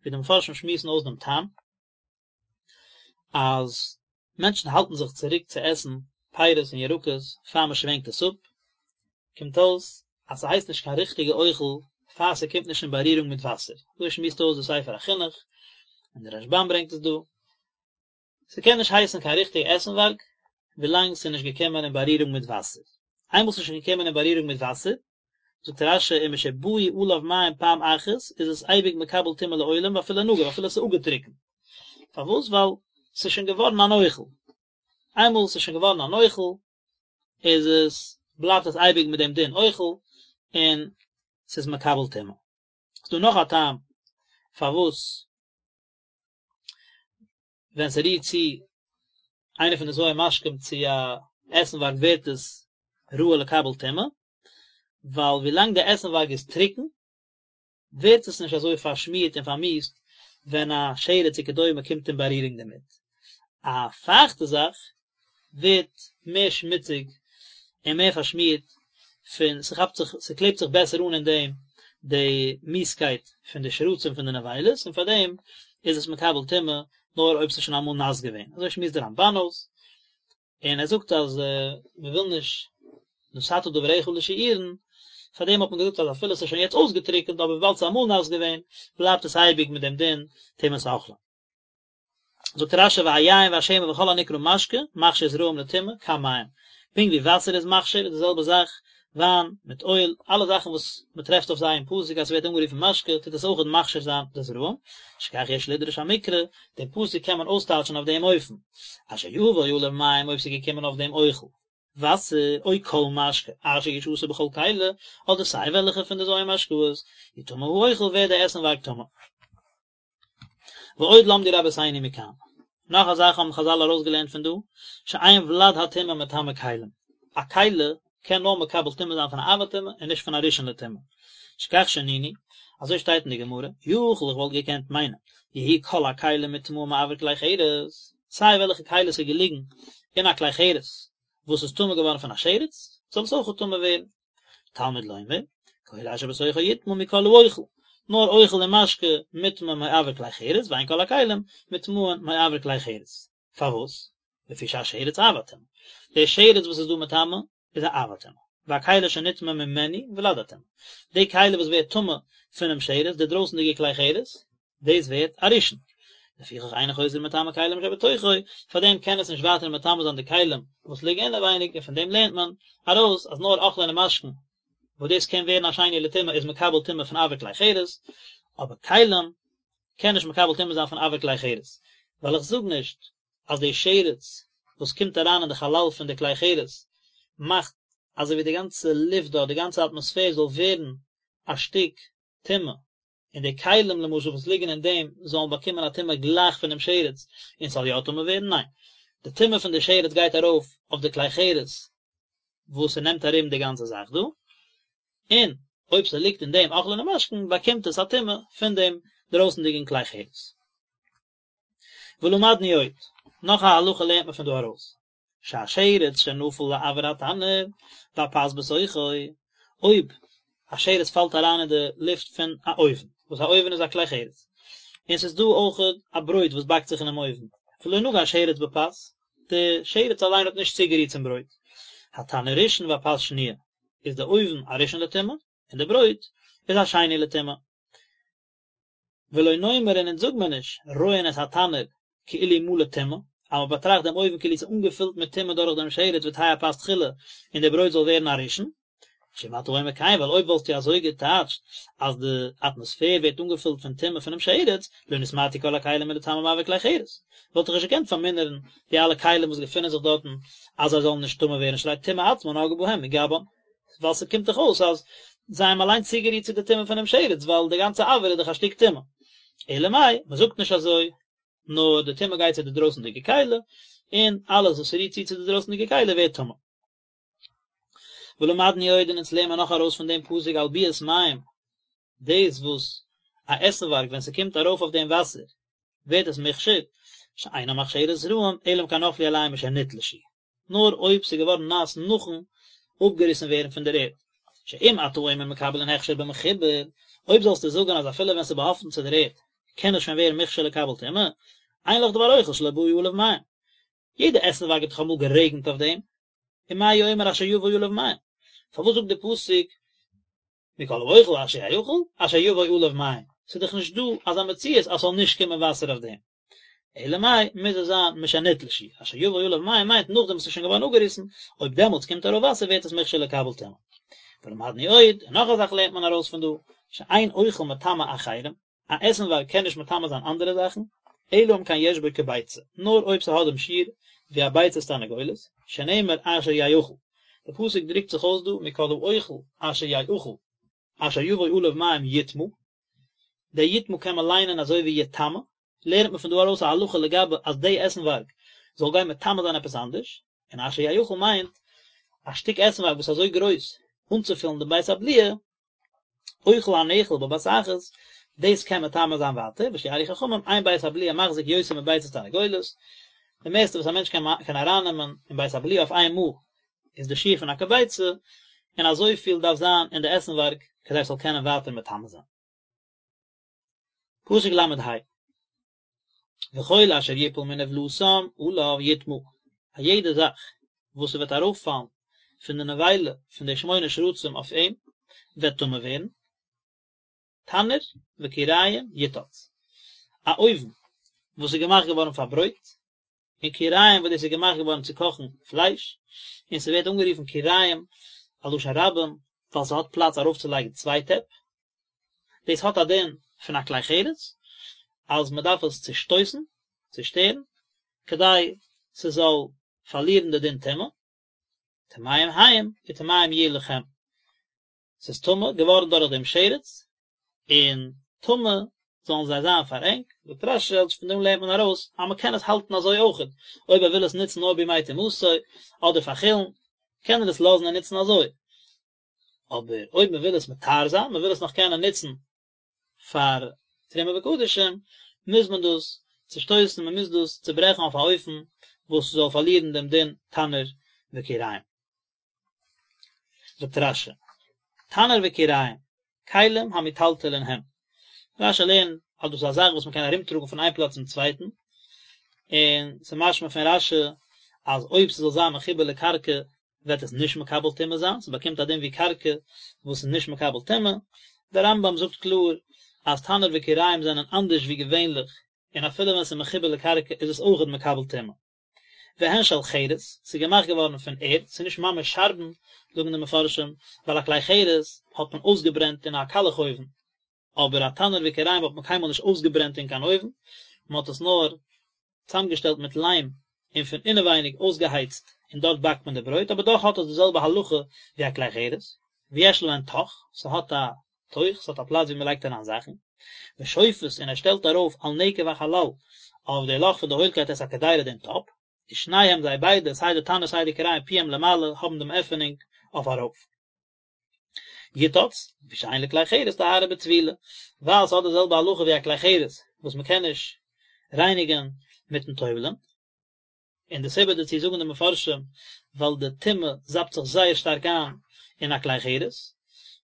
ווי די מפרשים שמועסן אויס דעם טעם, אז מענטשן האלטן זיך צוריק צו עסן פירות און ירקות פאר מען שווענקט עס אפ, קומט אויס אז ס'הייסט נישט קיין ריכטיגע אוכל פאר ס'קומט נישט אין בארירונג מיט וואסער, אזוי שמועסט אויס די ספר החינוך, און די רשב"ם ברענגט עס דא, ס'קען נישט הייסן קיין ריכטיגע עסנווארג ווילאנג ס'איז נישט געקומען אין בארירונג מיט וואסער, איינמאל ס'איז שוין געקומען אין בארירונג מיט וואסער, זאגט רש"י ומשבאו עליו מים פעם אחת איז עס אייביג מקבל טומאה לעולם ואפילו נגוף אפילו עס איז אפגעטריקנט, פארוואס ווייל ס'איז שוין געווארן אן אוכל, איינמאל ס'איז שוין געווארן אן אוכל איז עס בלייבט עס אייביג מיט דעם דין אוכל און ס'איז מקבל טומאה. ס'דא נאך א טעם פארוואס ווען ס'רירט צו איינע פון די ז' משקים צו א עסנווארג ווערט עס ראוי לקבל טומאה, ווייל ווילאנג די עסנווארג איז טרוקן ווערט עס נישט אזוי פארשמירט און פארמיאוסט ווען א שרץ וכדומה קומט אין בארירונג דערמיט. א פייכטע זאך ווערט מער שמוציג און מער פארשמירט פון ס'כאפט זיך ס'קלעבט זיך בעסער אן אין דעם די מיאוסקייט פון די שרצים פון די נבילות און פאר דעם איז עס מקבל טומאה נאר אויב ס'איז שוין אמאל נאס געווען אזוי שמועסט דער רמב"ן אויס און ער זאגט אז מ'וויל נישט נתת דבריך לשיעורין פאר דעם האט מען געזאגט אז אפילו ס'איז שוין יעצט אויסגעטריקענט אבער וויבאלד ס'איז אמאל נאס געווען בלייבט עס אייביג מיט דעם דין טומאת אוכלים. זאגט רש"י והיין והשמן וכל הנקרא משקה מכשיר זרעים לטומאה כמים, פונקט ווי וואסער איז מכשיר איז די זעלבע זאך וויין מיט אויל, אלע זאכן וואס מען טרעפט אויף זיי אין פסוק אז ס'ווערט אנגערופן משקה טוט עס אויכעט מכשיר זיין די זרעים, שכך יש לדרוש המקרא, דעם פסוק קען מען אויסטייטשן אויף דעם אופן, אשר יבוא עליו מים אויב ס'איז געקומען אויף דעם אוכל. וואסער, או כל משקה, אשר ישתה בכל כלי, אדער סיי וועלכע פון די ז' משקאות, יטמא האוכל ווערט די עסנווארג טמא. ועוד למדו רבותינו מכאן. נאך א זאך האבן חזל ארויסגעלערנט פון דא, שאין ולד הטומאה מטמא כלים. א כלי קען נאר מקבל טומאה זיין פון א אב הטומאה און נישט פון א ראשון לטומאה. שכך שנינו, אזוי שטייט אין די גמרא, יכול איך וואלט געקענט מיינען, יהיו כל הכלים מוטמאין מאויר כלי חרס, סיי וועלכע כלי ס'איז געליגן אין א כלי חרס וואס איז טמא געווארן פון א שרץ, זאל עס אויך טמא ווערן. תלמוד לומר, כל אשר בתוכו יטמא מכל האוכל, נאר אוכל און משקה מוטמא מאויר כלי חרס, ואין כל הכלים מוטמאין מאויר כלי חרס. פארוואס? לפי שהשרץ אב הטומאה. דער שרץ וואס איז דא מטמא איז א אב הטומאה. והכלי שנטמא ממנו ולד הטומאה. די כלי וואס ווערט טמא פונעם שרץ, די דרויסנדיגע כלי חרס, דאס ווערט א ראשון. לפיכך אינו חוזר ומטמא כלים שבתוכו, פאר דעם קען עס נישט ווייטער מטמא זיין די כלים וואס ליגן אינעווייניג, און פון דעם לערנט מען ארויס אז נאר אוכלין און משקין וואס דאס קען ווערן א שני לטומאה איז מקבל טומאה פון אויר כלי חרס, אבער כלים קען נישט מקבל טומאה זיין פון אויר כלי חרס, ווייל איך זאג נישט אז די שרץ וואס קומט אריין אין די חלל פון די כלי חרס מאכט אזוי ווי די גאנצע לופט דארט, די גאנצע אטמאספער זאל ווערן א שטיק טומאה, און די כלים למשל וואס ליגן אין דעם זאלן באקומען א טומאה גלייך פונעם שרץ און ס'זאל יא טמא ווערן? ניין, די טומאה פון די שרץ גייט ארויף אויף די כלי חרס וואס ס'נעמט ארום די גאנצע זאך דא, און אויב ס'ליגט אין דעם אוכלין און משקין באקומט עס א טומאה פון דעם דרויסנדיגן כלי חרס. ולמדנו עוד, נאך א הלכה לערנט מען פון דא ארויס, שהשרץ שנפל לאויר התנור והפת בתוכו, אויב א שרץ פאלט אריין אין די לופט פון א אויוון, וואס א אויוון איז א כלי חרס, און ס'איז דא אויך א ברויט וואס באקט זיך אינעם אויוון, ולא נגע השרץ בפת, די שרץ אליין האט נישט צוגערירט צום ברויט, התנור ראשון והפת שניה, איז די אויוון א ראשון לטומאה, און די ברויט איז א שני לטומאה. ולא נאמר און אונז זאג מיר נישט, רואין את התנור כאילו מלא טומאה, אז מען באטראכט דעם אויוון כאילו ס'איז אנגעפילט מיט טומאה דורך דעם שרץ ותהא הפת תחילה און די ברויט זאל ווערן א ראשון. שאם אתה אומר כן, ווייל אויב וואלסטו אזוי געטייטשט אז די אטמאספער ווערט אנגעפילט פון טומאה פונעם שרץ, לא נתמעטו כל הכלים מלטמא מאויר כלי חרס, וואלט איך נישט געקענט פארמינערן די אלע כלים וואס געפינען זיך דארטן אז זיי זאלן נישט טמא ווערן שהרי טומאה עצמה נגעה בהם מגבן. ווייל ס'קומט דאך אויס אז זיי האבן אליין צוגערירט צו די טומאה פונעם שרץ, ווייל די גאנצע אויר איז דאך א שטיק טומאה. אלא מאי, מ'זאגט נישט אזוי, נאר די טומאה גייט צו די דרויסנדיגע כלי, און אלעס וואס רירט צו צו די דרויסנדיגע כלי ווערט טמא. ולמדנו עוד און אונז לערנען מיר נאך ארויס פון דעם פסוק על ביאת מים, דאס וואס א עסנווארג ווען ס'קומט ארויף אויף דעם וואסער ווערט עס מוכשר, שאינה מכשירה זרעים אלא אם כן נפלו עליהם משנתלשו. נאר אויב ס'איז געווארן נאס נאכן אפגעריסן ווערן פון דער ערד. שאם אתה אומר מקבלין הכשר במחובר, אויב זאלסטו זאגן אז אפילו ווען ס'איז באהאפטן צו דער ערד קען עס שוין ווערן מוכשר לקבל טומאה, אין לך דבר אוכל שלא באו עליו מים. יעדע עסנווארג האט דאך אמאל גערעגנט אויף דעם, ומה הוא אומר אשר יבוא עליו מים? פארוואס זאגט דער פסוק מכל האוכל אשר יאכל אשר יבוא עליו מים? ס'איז דאך נישט דא אזא מציאות אז ס'זאל נישט קומען וואסער אויף דעם. אלא מאי, מוז עס זיין משנתלשו, אשר יבוא עליו מים מיינט נאכדעם וואס עס איז שוין געווארן אפגעריסן, אויב דעמאלטס קומט ארויף וואסער ווערט עס מוכשר לקבל טומאה. ולמדנו עוד, און נאך א זאך לערנט מען ארויס פון דא, שאין אוכל מטמא אחרים, א עסנווארג קען נישט מטמא זיין אנדערע זאכן, אלא אם כן יש בו כביצה, נאר אויב ס'האט דעם שיעור ווי א ביצת תרנגולת, שנאמר אשר יאכל, די פסוק דרוקט זיך אויס דא מכל האוכל אשר יאכל, אשר יבוא עליו מים יטמא, דער יטמא קען מען ליינען אזוי ווי יטמא, לערנט מען פון דא ארויס א הלכה לגבי אז די עסנווארג זאל גיין מטמא זיין עפעס אנדערש, און אשר יאכל מיינט א שטיק עסנווארג וואס איז אזוי גרויס אנצופילן דעם בית הבליעה, אוכל הנאכל בבת אחת, דאס קען מטמא זיין ווייטער, ושיערו חכמים, אין בית הבליעה מחזיק יותר מביצת תרנגולת, די מערסטע וואס א מענטש קען ארייננעמען אין בית הבליעה אויף איין מאל איז די שיעור פון א כביצה, און אזויפיל דארף זיין אין די עסנווארג כדי עס זאל קענען ווייטער מטמא זיין. פסוק ל' ה, וכל אשר יפול מנבלתם עליו יטמא, א יעדע זאך וואס ס'וועט ארויפפאלן פון די נבילה פון די שמונה שרצים אויף אים, וועט טמא ווערן. תנור וכיריים יותץ, א אויוון וואס איז געמאכט געווארן פאר ברויט, און כיריים וואס דאס איז געמאכט געווארן צו קאכן פלייש, און ס'ווערט אנגערופן כיריים א לשון רבים ווייל ס'האט פלאץ ארויפצולייגן צוויי טעפ, דאס האט א דין פון א כלי חרס אז מ'דארף עס צושטויסן, צושטערן, כדי ס'זאל פארלירן די דין טומאה. טמאים הם וטמאים יהיו לכם, ס'איז טמא געווארן דורך דעם שרץ, און טמא זאלן זיי זיין פאר ענק, זאגט רש"י אז פון דעם לערנט מען ארויס אז מען קען עס האלטן אזוי אויכעט, אויב ער וויל עס נוצן נאר בימי טומאתו אדער פאר חולין, קען ער עס לאזן און נוצן אזוי, אבער אויב מען וויל עס מטהר זיין, מען וויל עס נאך קענען נוצן פאר תרומה וקדשים, מוז מען דאס צושטויסן, מען מוז דאס צוברעכן אויף א אופן וואס ס'זאל פארלירן דעם דין תנור וכיריים. זאגט רש"י, תנור וכיריים, כלים המיטלטלין הם. רש"י לערנט אז דאס איז א זאך וואס מען קען ארומטראגן פון איין פלאץ צום צווייטן, און ס'איז משמע פון רש"י אז אויב ס'זאל זיין מחובר לקרקע וועט עס נישט מקבל טומאה זיין, ס'באקומט א דין ווי קרקע וואס איז נישט מקבל טומאה. דער רמב"ם זאגט קלאר אז תנור וכיריים זענען אנדערש ווי געווענליך, און אפילו ווען ס'איז מחובר לקרקע איז עס אויכעט מקבל טומאה. והן של חרס, ס'איז געמאכט געווארן פון ערד, ס'איז נישט ממש שארבן, זאגן די מפרשים, ווייל א כלי חרס האט מען אויסגעברענט אין א קאלעך אויוון, אבער א תנור וכיריים האט מען קיינמאל נישט אויסגעברענט אין קיין אויוון, מען האט עס נאר צאמגעשטעלט מיט ליים און פון אינעווייניג אויסגעהייצט און דארט באקט מען די ברויט, אבער דאך האט עס די זעלבע הלכה ווי א כלי חרס, ויש להן תוך, ס'האט א תוך, ס'האט א פלאץ ווי מען לייגט אריין זאכן, ושופת און ער שטעלט ארויף על נקב החלל אויף די לאך פון די הוילקייט את הקדירה דעם טאפ, ושניהם זיי ביידע סיי די תנור סיי די כיריים פיהם למעלה האבן דעם עפענונג אויף ארויף. יותץ, לפי שאין לכלי חרס טהרה בטבילה, ווייל ס'האט די זעלבע הלכה ווי א כלי חרס וואס מ'קען נישט רייניגען מיטן טובל'ען, און די סיבה דערצו זאגן די מפרשים ווייל די טומאה זאפט זיך זייער שטארק איין אין א כלי חרס,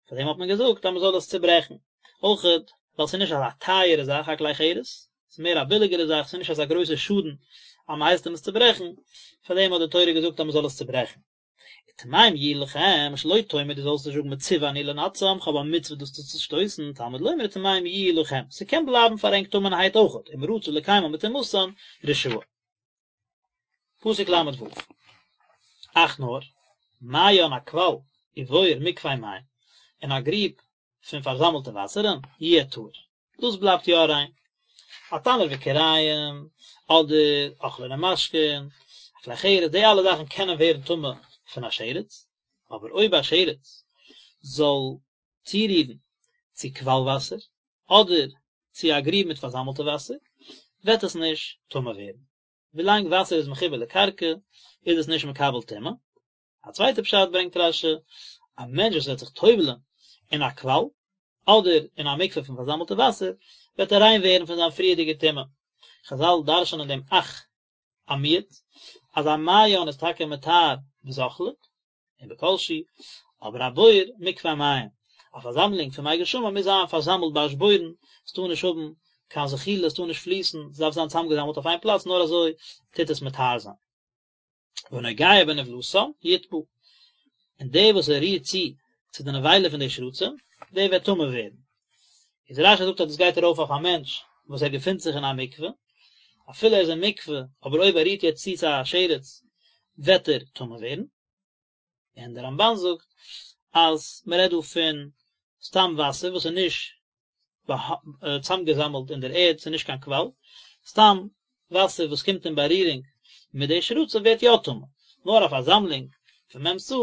פאר דעם האט מען געזאגט אז מ'זאל עס צוברעכן, אויכעט ווייל ס'איז נישט אזא טייערע זאך א כלי חרס, ס'איז מער א ביליגערע זאך, ס'איז נישט אזא גרויסע שאדן אז מ'הייסט אים עס צוברעכן, פאר דעם האט די תורה געזאגט אז מ'זאל עס צוברעכן. וטמאים יהיו לכם, שלא תאמר דו זאלסט נישט זאגן מצווה אני לנתצם, כ'האב א מצוה דאס צו צושטויסן, תלמוד לומר וטמאים יהיו לכם, ס'קען בלייבן פאר ענק טמא'נערהייט אויכעט, אם רצה לקיימן בטומאתן, רשאי. פסוק ל"ו, אך נאר, מעיין א קוואל, ובור מקווה מים, און א גריב פון פארזאמלטע וואסערן, יהיה טהור. דאס בלייבט יא ריין. א תנור וכיריים, אדער אוכלין ומשקין, א כלי חרס, די אלע זאכן קענען ווערן טמא פון א שרץ, אבער אויב א שרץ זאל צורירן צו קוואל וואסער, אדער צו א גריב מיט פארזאמלטע וואסער, וועט עס נישט טמא ווערן. ווילאנג וואסער איז מחובר לקרקע, איז עס נישט מקבל טומאה. א צווייטע פשט ברענגט רש"י, א מענטש וואס וועט זיך טובל'ען אין א קוואל, אדער אין א מקווה פון פארזאמלטע וואסער, וועט ער ריין ווערן פון זיין פריערדיגע טומאה. חז"ל דרש'נען דעם אך א מיעוט, אז א מעיין איז טאקע מטהר בזוחלין, און בכל שהוא, אבער א בור מקווה מים, א פארזאמלונג פון מי גשמים מוז זיין פארזאמלט באשבורן, עס טאר נישט האבן קיין זחילה, עס טאר נישט פליסן, עס דארף זיין צוזאמגעזאמלט אויף איין פלאץ, נאר אזוי טוט עס מטהר זיין. והנוגע בנבלתם יטמא, און דער וואס ער רירט צו צו די נבילה פון די שרצים, דער וועט טמא ווערן. איז רש"י זאגט אז דאס גייט ארויף אויף א מענטש וואס ער געפינט זיך אין א מקווה, אפילו ער איז אין מקווה, אבער אויב ער רירט יעצט צו צו א שרץ, וועט ער טמא ווערן. און דער רמב"ן זאגט אז מען רעדט דא פון סתם וואסער וואס איז נישט צאמגעזאמלט אין דער ערד, ס'איז נישט קיין קוואל, סתם וואסער וואס קומט אין בארירונג מיט די שרצים ווערט יא טמא, נאר א פארזאמלונג פון מ' סאה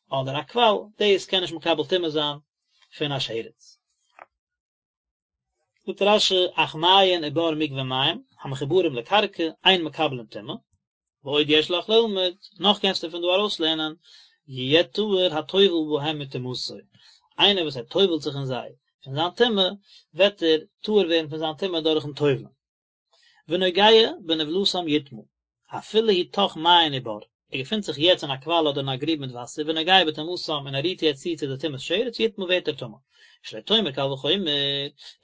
אדער א קוואל, דאס קען נישט מקבל טומאה זיין פון א שרץ. זאגט רש"י, אך מעיין ובור מקווה מים, המחוברים לקרקע, אין מקבלין טומאה, ועוד יש לך ללמוד, נאך קענסטו פון דא ארויסלערנען, יהיה טהור הטובל בהם מטומאתו, איינער וואס ער טובל'ט זיך אין זיי פון זיין טומאה, וועט ער טהור ווערן פון זיין טומאה דורכ'ן טובל'ן. ונוגע בנבלתם יטמא, אפילו הוא תוך מעיין ובור, ער געפינט זיך יעצט אין א קוואל אדער אין א גריב מיט וואסער, ונוגע בטומאתם און ער רירט יעצט צו צו די טומאת שרץ, יטמא ווערט ער טמא. שלא תאמר קל וחומר,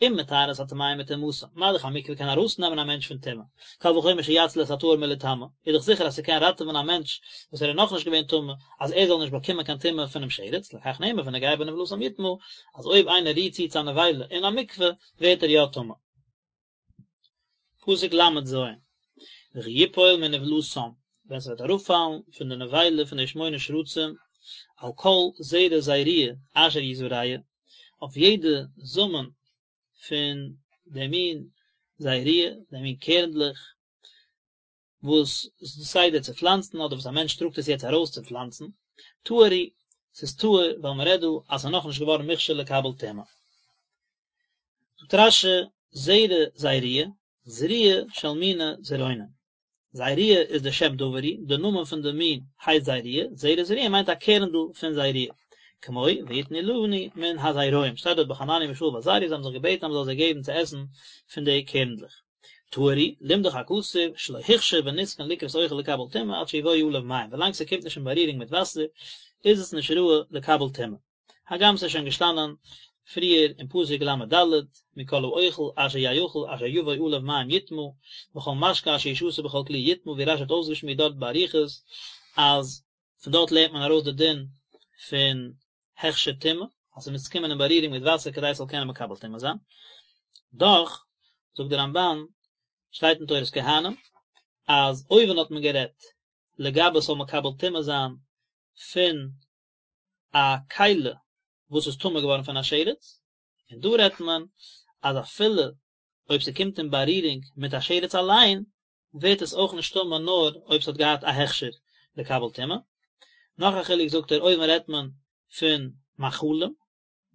אם מטהר את הטמאים מטומאתם, מה דאך א מקווה קען ארויסנעמען א מענטש פון טומאה, קל וחומר שיציל את הטהור מליטמא, איז דאך זיכער אז ס'קען ראטעווען א מענטש וואס ער איז נאכנישט געווען טמא, אז ער זאל נישט באקומען קיין טומאה פונעם שרץ, לכך נאמר ונוגע בנבלתם יטמא, אז אויב איינער רירט צו צו א נבילה אין א מקווה, ווערט ער יא טמא. פסוק ל"ז, וכי יפול מנבלתם, ווען ס'וועט אראפפאלן פון די נבילה פון די שמונה שרצים, על כל זרע זרוע אשר יזרע, אויף יעדע זאמען פון די מין זרוע, די מין קערנדלעך, וואס איז די סדר צו פלאנצן, אדער וואס א מענטש טראגט עס יעצט ארויס צו פלאנצן. טהור הוא, ס'איז טהור ווייל מ'רעדט דא אז ס'איז נאכנישט געווארן מוכשר לקבל טומאה. זאגט רש"י, זרע זירויה, זריעה של מיני זירעונין. זירויה איז די שם דבר הוא, די נאמען פון די מין הייסט זירויה, זרע זריעה מיינט א קערנדל פון זירויה. כמו ויתנו לנו מן הזרעים, שטייט דארט ביי חנניה מישאל ועזריה, זיי האבן זיך געבעטן אז מ'זאל זיי געבן צו עסן פון די קערנדלעך. טהור הוא, לימדך הכתוב, שלא הוכשר ונתקן לקרות אוכל לקבל טומאה עד שיבואו עליו מים, ווילאנג ס'קומט נישט אין בארירונג מיט וואסער איז עס נישט ראוי לקבל טומאה. הגם ס'איז שוין געשטאנען פריער אין פסוק ל"ד, מכל האוכל אשר יאכל אשר יבוא עליו מים יטמא, וכל משקה אשר ישתה בכל כלי יטמא, ווי רש"י האט אויסגעשמועסט דארט באריכות אז פון דארט לערנט מען ארויס די דין פון הכשר טומאה, אז ס'מוז קומען אין בארירונג מיט וואסער כדי ס'זאל קענען מקבל טומאה זיין. דאך, זאגט דער רמב"ן, שטייט אין תורת כהנים, אז אויבן האט מען גערעדט לגבי ס'זאל מקבל טומאה זיין פון א כלי וואס איז טמא געווארן פון א שרץ, און דא רעדט מען אז אפילו אויב ס'קומט אין בארירונג מיט א שרץ אליין, ווערט עס אויך נישט טמא נאר אויב ס'האט געהאט א הכשר לקבל טומאה. נאך א חילוק זאגט ער אויבן רעדט מען פון מאכלים,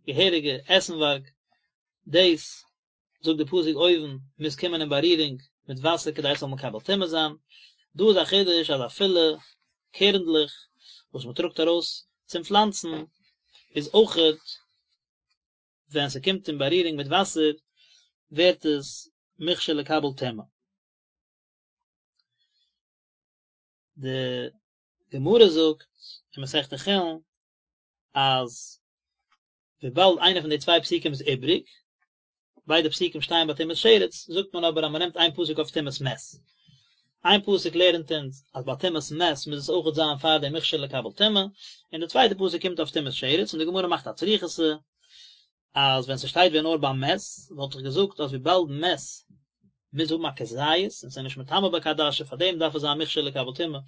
געהעריגע עסנווארג, דאס זאגט די פסוק אויבן מוז קומען אין בארירונג מיט וואסער כדי עס זאל מקבל טומאה זיין, דא איז א חידוש אז אפילו קערנדלעך וואס מען טראגט ארויס צום פלאנצן איז אויכעט ווען ס'קומט אין בארירונג מיט וואסער ווערט עס מוכשר לקבל טומאה. די גמרא זאגט אין מסכת חולין אז וויבאלד איינע פון די צוויי פסוקים איז איבריג, ביידע פסוקים שטייען ביי טומאת שרץ, זאגט מען אבער אז מען נעמט איין פסוק אויף טומאת מת. איין פסוק לערנט אונז אז ביי טומאת מת מוז עס אויכעט זיין פאר דעם מוכשר לקבל טומאה, און די צווייטע פסוק קומט אויף טומאת שרץ, און די גמרא מאכט א צריכותא אז ווען ס'שטייט ווען נאר ביי מת, וואלט איך געזאגט אז וויבאלד מת מוז האבן א כזית און ס'איז נישט מטמא בכעדשה פאר דעם דארף עס זיין מוכשר לקבל טומאה,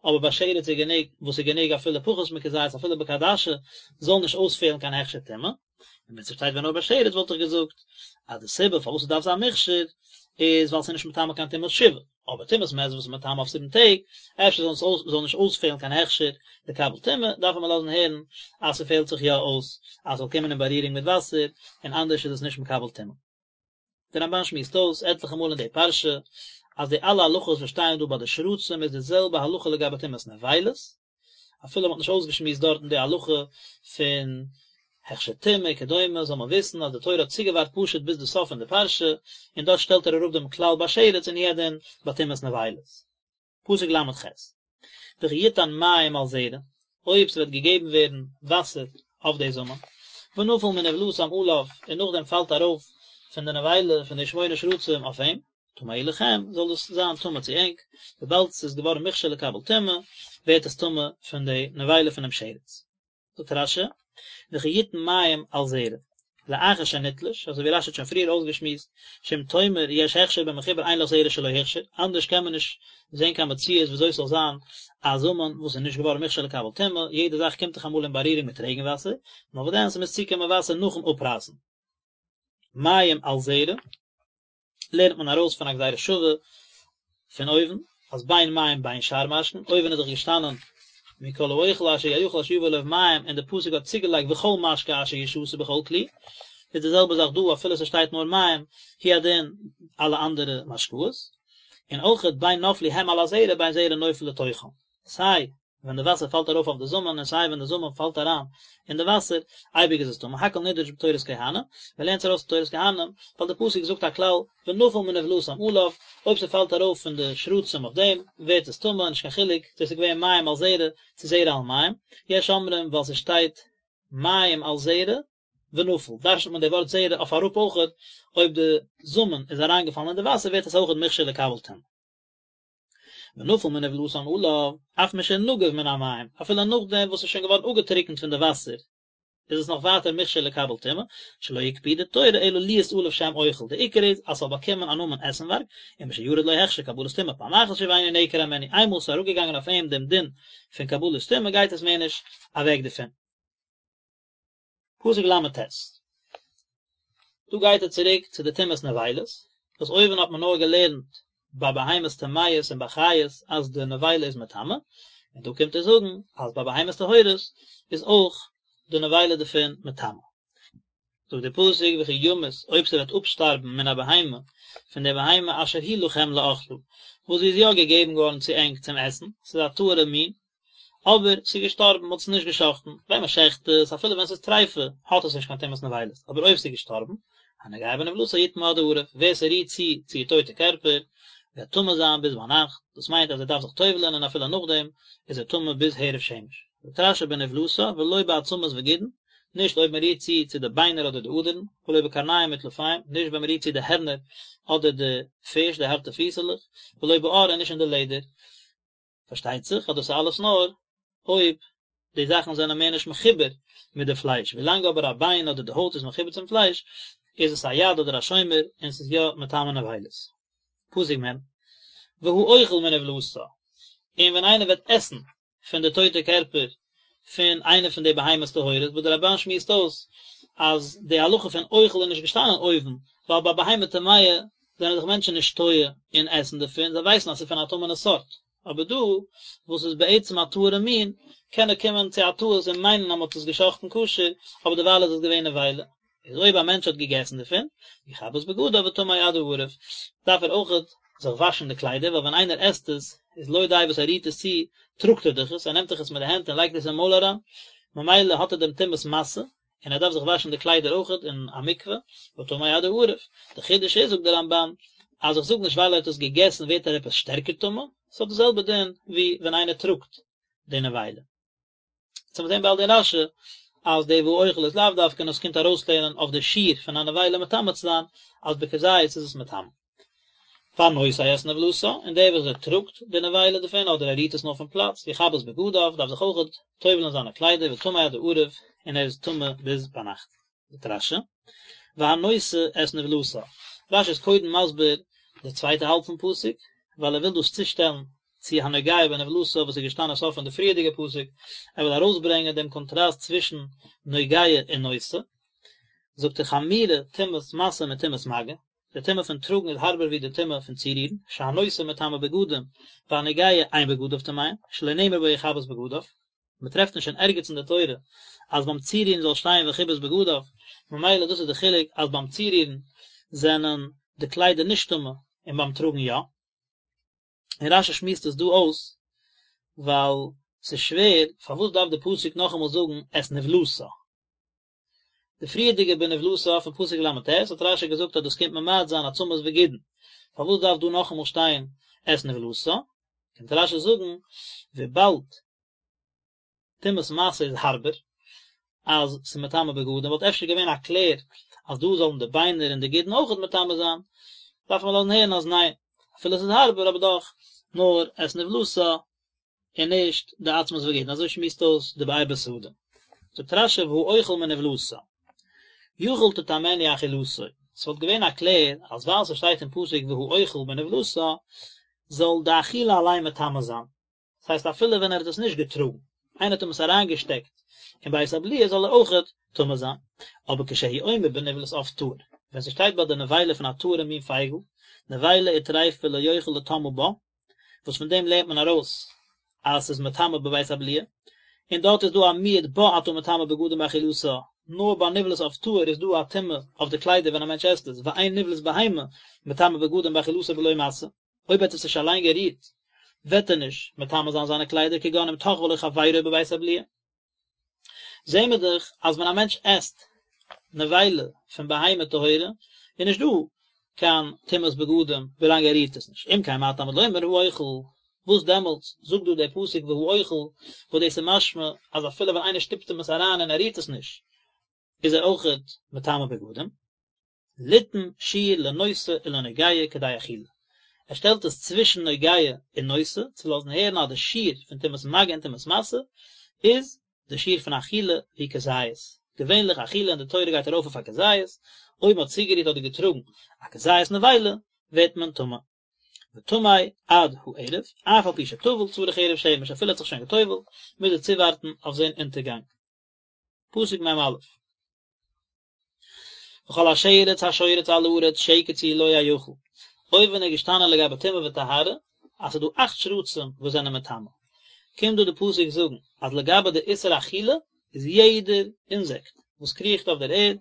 אבער ביי שרץ איז גענוג וואס איז גענוג אפילו פחות מכזית אפילו בכעדשה זאל נישט אויספעלן קיין הכשר טומאה, און ווען ס'שטייט ווען נאר ביי שרץ וואלט איך געזאגט אז די סיבה פארוואס ס'דארף זיין מוכשר איז ווייל ס'איז נישט מטמא קיין טומאת שבעה, אבער טומאת מת וואס איז מטמא אויף זיבן טעג, אפשר זאל עס זאל נישט אויספעלן קיין הכשר לקבל טומאה, דארף מען לאזן הערן אז ס'פעלט זיך יא אויס אז ס'זאל קומען אין בארירונג מיט וואסער, און אנדערש איז עס נישט מקבל טומאה. דער רמב"ן שמועסט אויס עטליכע מאל אין די פרשה אז די אלע הלכות וואס שטייען דא ביי די שרצים איז די זעלבע הלכה לגבי טומאת נבילות, אפילו מ'האט נישט אויסגעשמועסט דארטן די הלכה פון הכשר טומאה וכדומה, זאל מען וויסן אז די תורה האט צוגעווארט פשוט ביז די סוף פון די פרשה, און דארט שטעלט ער אראפ דעם כלל ביי שרץ און הוא הדין ביי טומאת נבילות. פסוק ל"ח, וכי יתן מים על זרע, אויב ס'וועט געגעבן ווערן וואסער אויף די זאמען, ונפל מנבלתם עליו, און נאכדעם פאלט ארויף פון די נבילה פון די שמונה שרצים אויף אים, טמא הוא לכם, זאל דאס זיין טמא צו ענק, וויבאלד ס'איז געווארן מוכשר לקבל טומאה, ווערט עס טמא פון די נבילה פונעם שרץ. זאגט רש"י, וכי יתן מים על זרע, לאחר שנתלש, אזוי ווי רש"י האט שוין פריער אויסגעשמועסט, שאם תאמר יש הכשר במחובר אין לך זרע שלא הוכשר, אנדערש קען מען נישט זען קיין מציאות וויאזוי ס'זאל זיין א זאמען וואס איז נישט געווארן מוכשר לקבל טומאה, יעדע זאך קומט דאך אמאל אין בארירונג מיט רעגן וואסער, נאר וואס דען ס'מוז צוקומען וואסער נאכן אפרייסן. מים על זרע. לערנט מען ארויס פון א גזירה שווה פון אויבן, אז בין מים בין שאר משקין, אויבן איז דאך געשטאנען מכל האוכל אשר יאכל אשר יבא עליו מים, און די פסוק האט צוגעלייגט וכל משקה אשר ישתה בכל כלי, איז די זעלבע זאך דא אפילו ס'שטייט נאר מים, הוא הדין אלע אנדערע משקאות, און אויכעט בין נפלו הם על הזרע בין זרע נופל לתוכם, סיי ווען די וואסער פאלט ארויף אויף די זאמען און סיי ווען די זאמען פאלט אריין אין די וואסער, אייביג איז עס טמא, הכל נדרש בתורת כהנים, מען לערנט עס ארויס פון תורת כהנים, ווייל די פסוק זאגט א כלל, ונפל מנבלתם עליו, אויב ס'פאלט ארויף פון די שרצים אויף דעם, ווערט עס טמא, נישט קיין חילוק צו עס איז געווען מים על זרע צו זרע על מים, יש אומרים ווייל ס'שטייט מים על זרע ונפל, דרש'נט מען די ווארט זרע אויף אראפ אויכעט, אויב די זאמען איז אריינגעפאלן אין די וואסער ווערט עס אויכעט מוכשר לקבל טומאה. ונפל מנבלתן עליו, אף משנגב מן המים, אפילו נאכדעם וואס ס'איז שוין געווארן אפגעטריקנט פון די וואסער, איז עס נאך ווייטער מוכשר לקבל טומאה, שלא הקפידה תורה אלא להיות עליו שם אוכל, די עיקר איז אז ס'זאל באקומען א נאמען עסנווארג, ומשירד לו הכשר קבלת טומאה פעם אחת שוב אינו נעקר הימנו, איינמאל ס'איז אראפגעגאנגען אויף אים דעם דין פון קבלת טומאה גייט עס מער נישט אוועק דערפון. פסוק ל"ט. דא גייט ער צוריק צו די טומאת נבילות, וואס אויבן האט מען נאר געלערנט ביי בהמות טמאות און ביי חיות אז די נבילה איז מטמא, און דא קומט ער זאגן אז ביי בהמות טהורות איז אויך די נבילה דערפון מטמא. זאגט דער פסוק וכי ימות אויב ס'וועט אפשטארבן מן הבהמה פון דער בהמה אשר היא לכם לאכלה וואס זי איז יא געגעבן געווארן צו ענק צום עסן, ס'איז א טהור'ע מין, אבער ס'איז געשטארבן, מ'האט עס נישט גע'שחט'ן, ווען מ'שחט עס, אפילו ווען ס'איז טריפה, האט עס נישט קיין טומאת נבילות, אבער אויב ס'איז געשטארבן, הנוגע בנבלתה יטמא עד הערב, ווער ס'רירט צו צו איר טויטע קערפער, וועט טמא זיין ביז ביינאכט, דאס מיינט אז ער דארף זיך טובל'ען און אפילו נאכדעם איז ער טמא ביז הערב שמש. זאגט רש"י בנבלתה ולא בעצמות וגידין, נישט אויב מ'רירט צו צו די ביינער אדער די אדערן, ולא בקרניים וטלפיים, נישט ווען מ'רירט צו די הערנער אדער די פיש, די הארטע פיסעלעך, ולא בעור און נישט אין די לעדער. פארשטייט זיך אז דאס איז אלעס נאר אויב די זאכן זענען מער נישט מחובר מיט די פלייש, ווילאנג אבער א ביין אדער די הויט איז מחובר צום פלייש איז עס א יד אדער א שומר און ס'איז יא מטמא נבילות. פסוק מ', והאוכל מנבלתה, און ווען איינער וועט עסן פון די טויטע קערפער פון איינע פון די בהמות טהורות, וואס דער רמב"ן שמועסט אויס אז די הלכה פון אוכל איז נישט געשטאנען אויבן, ווייל ביי בהמה טמאה זענען זיך מענטשן נישט טועה אין עסן דערפון, זיי ווייסן אז ס'איז פון א טמא'נע סארט, אבער דא וואס איז בעצם א טהור'ע מין, קען ער קומען צו א טעות און מיינען אז מ'האט עס גע'שחט'ן כשר, אבער דערווייל איז עס געווען נבילה. איז אויב א מענטש האט געגעסן דערפון, יכבס בגדיו וטמא עד הערב, דארף ער אויכעט זיך וואשן די קליידער, ווייל ווען איינער עסט עס, איז לא די וואס ער רירט עס צו, טראגט ער דאך עס, ער נעמט דאך עס מיט די הענט און לייגט עס אין מויל אריין, ממילא האט ער דעם טומאת משא, און ער דארף זיך וואשן די קליידער אויכעט אין א מקווה, וטמא עד הערב. די חידוש איז, זאגט דער רמב"ן, אז איך זאג נישט ווייל ער האט עס געגעסן ווערט ער עפעס שטערקער טמא, ס'האט די זעלבע דין ווי ווען איינער טראגט די נבילה. יעצט וועט מען זען באלד אין רש"י אז די והאוכל איז לאו דווקא און עס קומט ארויסלערנען אויף די שיעור פון א נבילה מטמא צו זיין אז בכזית איז עס מטמא. והנושא את נבלתה, און דער וואס ער טראגט די נבילה דערפון אדער ער רירט עס נאר פון פלאץ, יכבס בגדיו, דארף זיך אויכעט טובל'ן זיינע קליידער וטמא עד הערב, און ער איז טמא ביז ביינאכט. זאגט רש"י, והנושא את נבלתה, רש"י איז קודם מסביר די צווייטע האלב פון פסוק, ווייל ער וויל דאס צושטעלן צו הנוגע בנבלתה וואס איז געשטאנען סוף פון די פריערדיגע פסוק, ער וויל ארויסברענגען דעם קאנטראסט צווישן נוגע און נושא, זאגט ער חמורה טומאת משא מטומאת מגע, די טומאה פון טראגן איז הארבער ווי די טומאה פון צורירן, שהנושא מטמא בגדים, והנוגע אין בגדיו טמאין, שלא נאמר בו יכבס בגדיו. מען טרעפט נישט אין ערגעץ אין די תורה אז ביים צורירן זאל שטיין וכיבס בגדיו, ממילא דאס איז די חילוק אז ביים צורירן זענען די קליידער נישט טמא און ביים טראגן יא. און רש"י שמועסט עס דא אויס ווייל ס'איז שווער פארוואס דארף די פסוק נאכאמאל זאגן את נבלתה. די פריערדיגע בנבלתה פון פסוק ל"ט האט רש"י געזאגט אז דאס קומט ממעט זיין עצמות וגידין, פארוואס דארף דא נאכאמאל שטיין את נבלתה? קומט רש"י זאגן וויבאלד טומאת משא איז הארבער אז ס'איז מטמא בגדים וואלט אפשר געווען א קלער אז דא זאלן די ביינער און די גידין אויכעט מטמא זיין, דארף מען לאזן הערן אז ניין, אפילו ס'איז הארבער אבער דאך נאר את נבלתה און נישט די עצמות וגידין, אזוי שמועסט אויס די באר בשדה. זאגט רש"י והאוכל מנבלתה יכול תטמאנו אכילתו, ס'וואלט געווען א קלער אז ווייל ס'שטייט אין פסוק והאוכל מנבלתה זאל די אכילה אליין מטמא זיין, דאס הייסט אפילו ווען ער האט עס נישט געטראגן, איינער האט אים עס אריינגעשטעקט אין בית הבליעה זאל ער אויכעט טמא זיין, אבער כשהוא אומר בנבלת עוף טהור, ווען ס'שטייט ביי די נבילה פון א טהור'ע מין פייגל, נבילה וטריפה לא יוכל לטמאה בה, וואס פון דעם לערנט מען ארויס אז ס'איז מטמא בבית הבליעה, און דארט איז דא א מיעוט בה אתה מטמא בגדים באכילתה, נאר ביי נבלת עוף טהור איז דא א טומאה אויף די קליידער ווען א מענטש עסט עס, ואין נבלת בהמה מטמא בגדים באכילתה בלא משא, אויב ער האט עס נישט אליין גערירט וועט ער נישט מטמא זיין זיינע קליידער כגון אם תחבו לו חברו בבית הבליעה. זעהן מיר דאך אז ווען א מענטש עסט נבילה פון בהמה טהורה איז נישט דא קיין טומאת בגדים ווילאנג ער רירט עס נישט, אם כן מה תלמוד לומר האוכל, וואס דעמאלטס זאגט דא דער פסוק והאוכל וואס דאס איז משמע אז אפילו ווען איינער שטופט אים עס אריין און ער רירט עס נישט איז ער אויכעט מטמא בגדים. ליתן שיעור לנושא ולנוגע כדי אכילה. ער שטעלט עס צווישן נוגע און נושא, צו לאזן הערן אז די שיעור פון טומאת מגע און טומאת משא איז די שיעור פון אכילה ווי כזית. געווענליך אכילה אין די תורה גייט ארויף אויף א כזית, אויב מען האט צוגערירט אדער געטראגן א כזית נבילה ווערט מען טמא. וטמא עד הערב, אף על פי שטבל צריך הערב שמש, אפילו ער האט זיך שוין גע'טובל'ט, מוז ער צואווארטן אויף זון אונטערגאנג. פסוק מ"א. וכל השרץ השורץ על הארץ שקץ הוא לא יאכל, אויבן איז געשטאנען לגבי טומאה וטהרה אז ס'איז דא אכט שרצים וואס זענען מטמא. קומט דא די פסוק זאגן אז לגבי די איסור אכילה איז יעדער אינזעקט וואס קריכט אויף דער ערד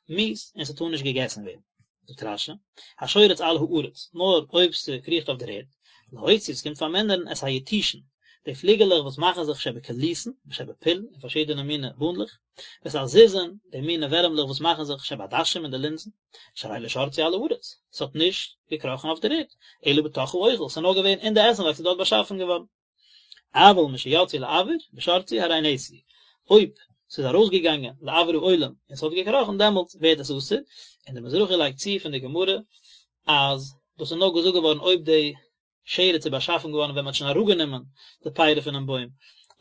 מיאוס און ס'טאר נישט געגעסן ווערן. זאגט רש"י, השורץ על הארץ, נאר אויב ס'קריכט אויף דער ערד, להוציא, ס'קומט פארמינערן את היתושין, די פליגעלעך וואס מאכן זיך שבקוליסין ושבפול אין פארשידענע מיני באנדלעך, ואת הזיזין, די מיני ווערעמלעך וואס מאכן זיך שבעדשים אין די לינזן, שהרי לא שרצו על הארץ, ס'האט נישט געקראכן אויף דער ערד, אלא בתוך האוכל, ס'איז נאר געווען אין די עסנווארג, ס'איז דארט באשאפן געווארן. אבל משיצאו לאויר ושרצו הרי נאסרו, אויב ס'איז ארויסגעגאנגען לאויר העולם און ס'האט געקראכן דעמאלטס ווערט עס אסור, און דער מזרחי לייגט צו פון די גמרא אז דאס איז נאר געזאגט געווארן אויב די שרץ איז באשאפן געווארן ווען מ'האט שוין אראפגענומען די פירי פונעם בוים,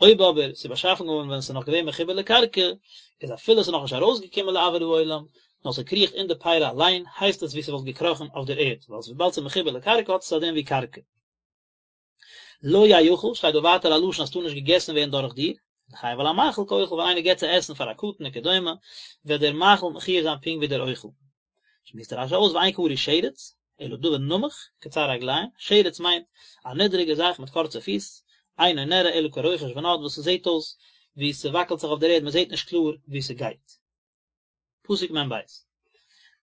אויב אבער ס'איז באשאפן געווארן ווען ס'איז נאך געווען מחובר לקרקע, איז אפילו ס'איז נאכנישט ארויסגעקומען לאויר העולם, נאר ס'קריכט אין די פירי אליין, הייסט עס ווי ס'וואלט געקראכן אויף דער ערד, ווייל וויבאלד ס'איז מחובר לקרקע האט עס א דין ווי קרקע. לא יאכל, שטייט דא ווייטער א לשון אז ס'טאר נישט געגעסן ווערן דורך דיר, לחייב על המאכיל כאוכל ווען איינער געבט צו עסן פאר א קטן וכדומה, וועט דער מאכיל מחויב זיין פונקט ווי דער אוכל. שמועסט רש"י אויס ואין קרוי שרץ, אלא דבר נמוך, קצר רגליים, שרץ מיינט א נידריגע זאך מיט קורצע פיס, אינו נראה אלא כרוחש ונד וואס ס'זעט אויס ווי ס'וואקלט זיך אויף דער ערד מ'זעט נישט קלאר ווי ס'גייט. פסוק מ"ב,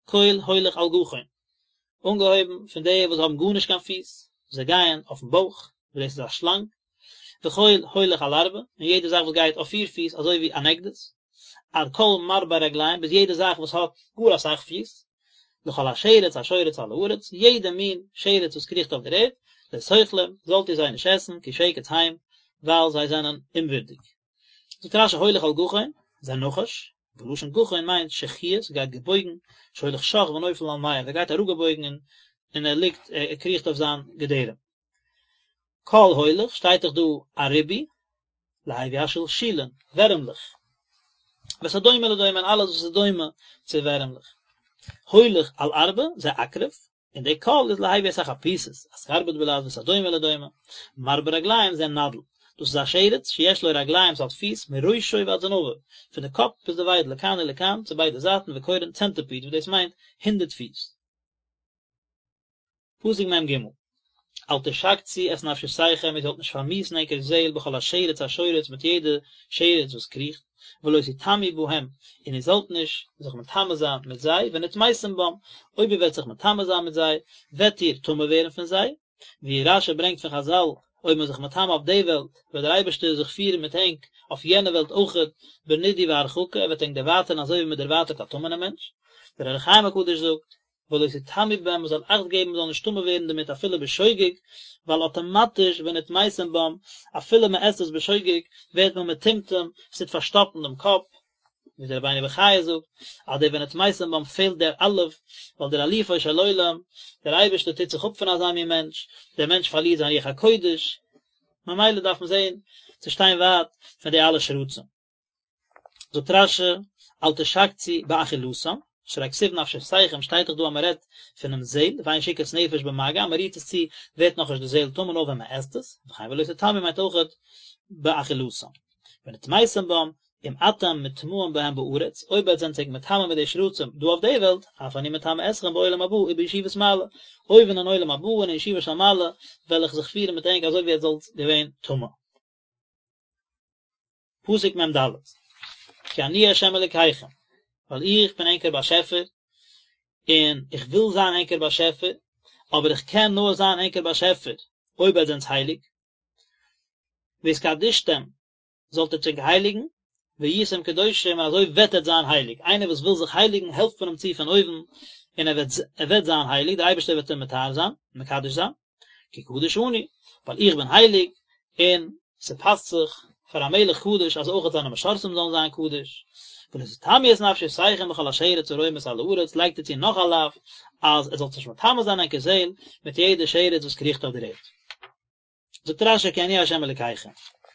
כל הולך על גחון, אנגעהויבן פון די וואס האבן גארנישט קיין פיס, זיי גייען אויפן בויך, וואס דאס איז א שלאנג, וכל הולך על ארבע, און יעדע זאך וואס גייט אויף פיר פיס אזוי ווי אן עקדיש, עד כל מרבה רגליים, ביז יעדע זאך וואס האט גאר אסאך פיס, לכל השרץ השורץ על הארץ, יעדע מין שרץ וואס קריכט אויף דער ערד, לא תאכלום, זאלט איר זיי נישט עסן, כי שקץ הם, ווייל זיי זענען אומווירדיג. זאגט רש"י הולך על גחון, זה נחש, ולשון גחון מיינט שחוע, ס'גייט געבויגן, שהולך שח ונופל על מעיו, ער גייט אראפגעבויגן און ער ליגט, ער קריכט אויף זיין געדערים. כל הולך, שטייט דאך דא א ריבוי, להביא השלשולין, ווערעמלעך. ואת הדומה לדומה און אלעס וואס איז דומה צו ווערעמלעך. הולך על ארבע, זה עקרב, און די כל איז להביא את החפיסות, אסקרבוט בלע"ז ואת הדומה לדומה, מרבה רגליים זה נדל, דאס איז א שרץ שיש לו רגליים ס'האט פיס מראשו ועד זנבו, פון די קאפ ביז די וויידל לכאן ולכאן צו ביידע זייטן וקורין צענטיפיד וואס דאס מיינט הונדרעט פיס. פסוק מ"ג, אל תשקצו את נפשותיכם איר זאלט נישט פארמיאוסן ענקער זעהל בכל השרץ השורץ מיט יעדע שרץ וואס קריכט, ולא תטמאו בהם, און איר זאלט נישט זיך מטמא זיין מיט זיי, ונטמאתם בם, אויב איר וועט זיך מטמא זיין מיט זיי, וועט איר טמא ווערן פון זיי, ווי רש"י ברענגט פון חז"ל, אויב מען איז זיך מטמא אויף די וועלט, וועט דער אייבערשטער זיך פירן מיט ענק אויף יענע וועלט אויכעט, בנידוי והרחקה, ער וועט ענק דערווייטערן אזוי ווי מען דערווייטערט א טמא'נעם מענטש. דער אור החיים הקדוש זאגט, ולא תטמאו בהם, מען זאל אכט געבן מען זאל נישט טמא ווערן דערמיט אפילו בשוגג, ווייל אטאמאטיש ונטמאתם בם, אפילו מען עסט עס בשוגג, ווערט מען מטומטם, עס טוט פארשטאפן דעם קאפ, ווי דער רבינו בחיי זאגט, אז דער ונטמאתם בם פעלט דער אלף, ווייל דער אלופו של עולם, דער אייבערשטער טוט זיך אפ פון אזא מין מענטש, דער מענטש פארלירט זיין רוח הקודש, ממילא דארף מען זען צו שטיין ווייט פון די אלע שרצים. זאגט רש"י, אל תשקצו באכילתם, שהרי כתיב נפשותיכם, שטייט דאך דא אז מען רעדט פונעם זעל, ואין שיקוץ נפש במגע, אז מען רירט עס צו ווערט נאכנישט די זעל טמא נאר ווען מען עסט עס, וכן ולא תטמאו מיינט אויכעט באכילתם. ונטמאתם בם, אם אתם מטמאים בהם בארץ, אויב עטס זענט זיך מטמא מיט די שרצים דא אויף די וועלט, אף אני מטמא אתכם בעולם הבא ובישיבת מעלה, אויבן אין עולם הבא און אין ישיבה של מעלה וועל איך זיך פירן מיט ענק אזוי ווי עטס זאלט געווען טמא. פסוק מ"ד, כי אני ה' אלקיכם, ווייל איך בין ענקער באשעפער, און איך וויל זיין ענקער באשעפער, אבער איך קען נאר זיין ענקער באשעפער אויב עטס זענטס הייליג, והתקדשתם, זאלט עטס ענק הייליגן, והייתם קדושים, און אזוי וועט עטס זיין הייליג, איינער וואס וויל זיך הייליגן העלפט מען אים צו פון אויבן, און ער וועט ער וועט זיין הייליג, דער אייבערשטער וועט אים מטהר זיין, מקדש זיין. כי קדוש אני, ווייל איך בין הייליג, און ס'פאסט זיך פאר א מלך קדוש אז אויכעט זיינע משרתים זאלן זיין קדוש. ולא תטמאו את נפשותיכם בכל השרץ הרומש על הארץ, לייגט ער צו נאך א לאו, אז עטס זאלטס נישט מטמא זיין ענקער זעהל מיט יעדע שרץ וואס קריכט אויף דער ערד. זאגט רש"י כי אני ה' אלקיכם,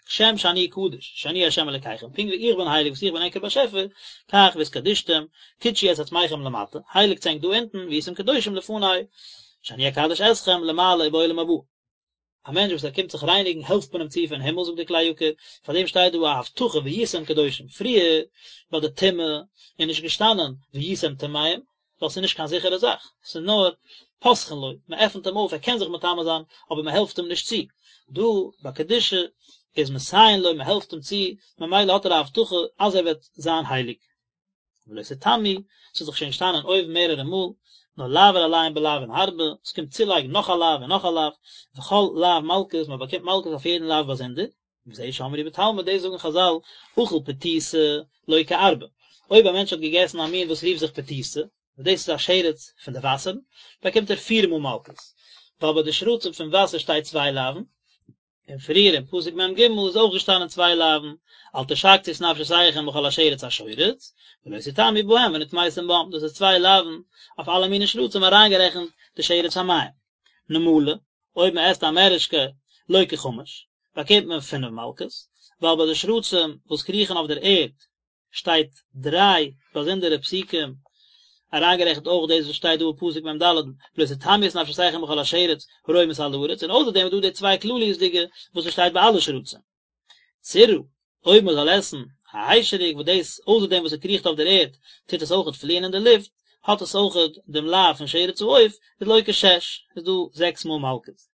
כשם שאני קדוש, שאני ה' אלקיכם, פונקט ווי איך בין הייליג וואס איך בין ענקער באשעפער, כך והתקדשתם, קדשו את עצמכם למטה, הייליגטס ענק דא אונטן, והייתם קדושים לפני, שאני אקדש אתכם למעלה ובעולם הבא. א מענטש וואס ער קומט זיך רייניגן העלפט מען אים צו פון הימל זאגט דער כלי יקר, פאר דעם שטייט דא א הבטחה והייתם קדושים, פריער ביי די טומאה איז נישט געשטאנען והייתם טמאים, ווייל ס'איז נישט קיין זיכערע זאך, ס'איז נאר פותחין לו, מען עפנט אים אויף ער קען זיך מטמא זיין, אבער מען העלפט אים נישט צו. דא ביי קדושה איז מסייעין לו, מען העלפט אים צו, ממילא האט ער א הבטחה אז ער וועט זיין הייליג. ולא תטמאו, ס'איז דאך שוין געשטאנען אויבן מערערע מאל, נאר לעבור עליהם בלאוין הרבה, עס קומט צולייגן נאך א לאו און נאך א לאו, וכל לאו מלקות, מען באקומט מלקות אויף יעדן לאו באזונדער, וזה שאמרו בתלמוד, דאס זאגן חזל, אכל פתיתא, לוקה ארבע, אויב א מענטש האט געגעסן א מין וואס רופט זיך פתיתא, וואס דאס איז א שרץ פון די וואסערן, באקומט ער פיר מאל מלקות, ווייל ביי די שרצים פון וואסער שטייט צוויי לאווין, און פריער אין פסוק מ ג איז אויך געשטאנען צוויי לאווין, אל תשקצו את נפשותיכם בכל השרץ השורץ, ולא תטמאו בהם ונטמאתם בם, דאס איז צוויי לאווין אויף אלע מיני שרצים אריינגערעכנט די שרץ המים. נמלה, אויב מען עסט א מערעשקע לוקה חמש, באקומט מען פינף מלקות, ווייל ביי די שרצים וואס קריכן אויף דער ערד שטייט דריי באזונדערע פסוקים, אריינגערעכנט אויך דאס וואס שטייט דא אין פסוק מ ד, ולא תטמאו את נפשותיכם בכל השרץ הרומש על הארץ, און אויסער דעם איז דא די צוויי כלליות'דיגע וואס עס שטייט ביי אלע שרצים. צרעה, אויב מען זאל עסן א היישעריק וואס דאס אויסער דעם וואס עס קריכט אויף דער ערד טוט עס אויכעט פליען אין די לופט, האט עס אויכעט דעם לאו פון שרץ העוף, איז לוקה שש, איז דא זעקס מאל מלקות.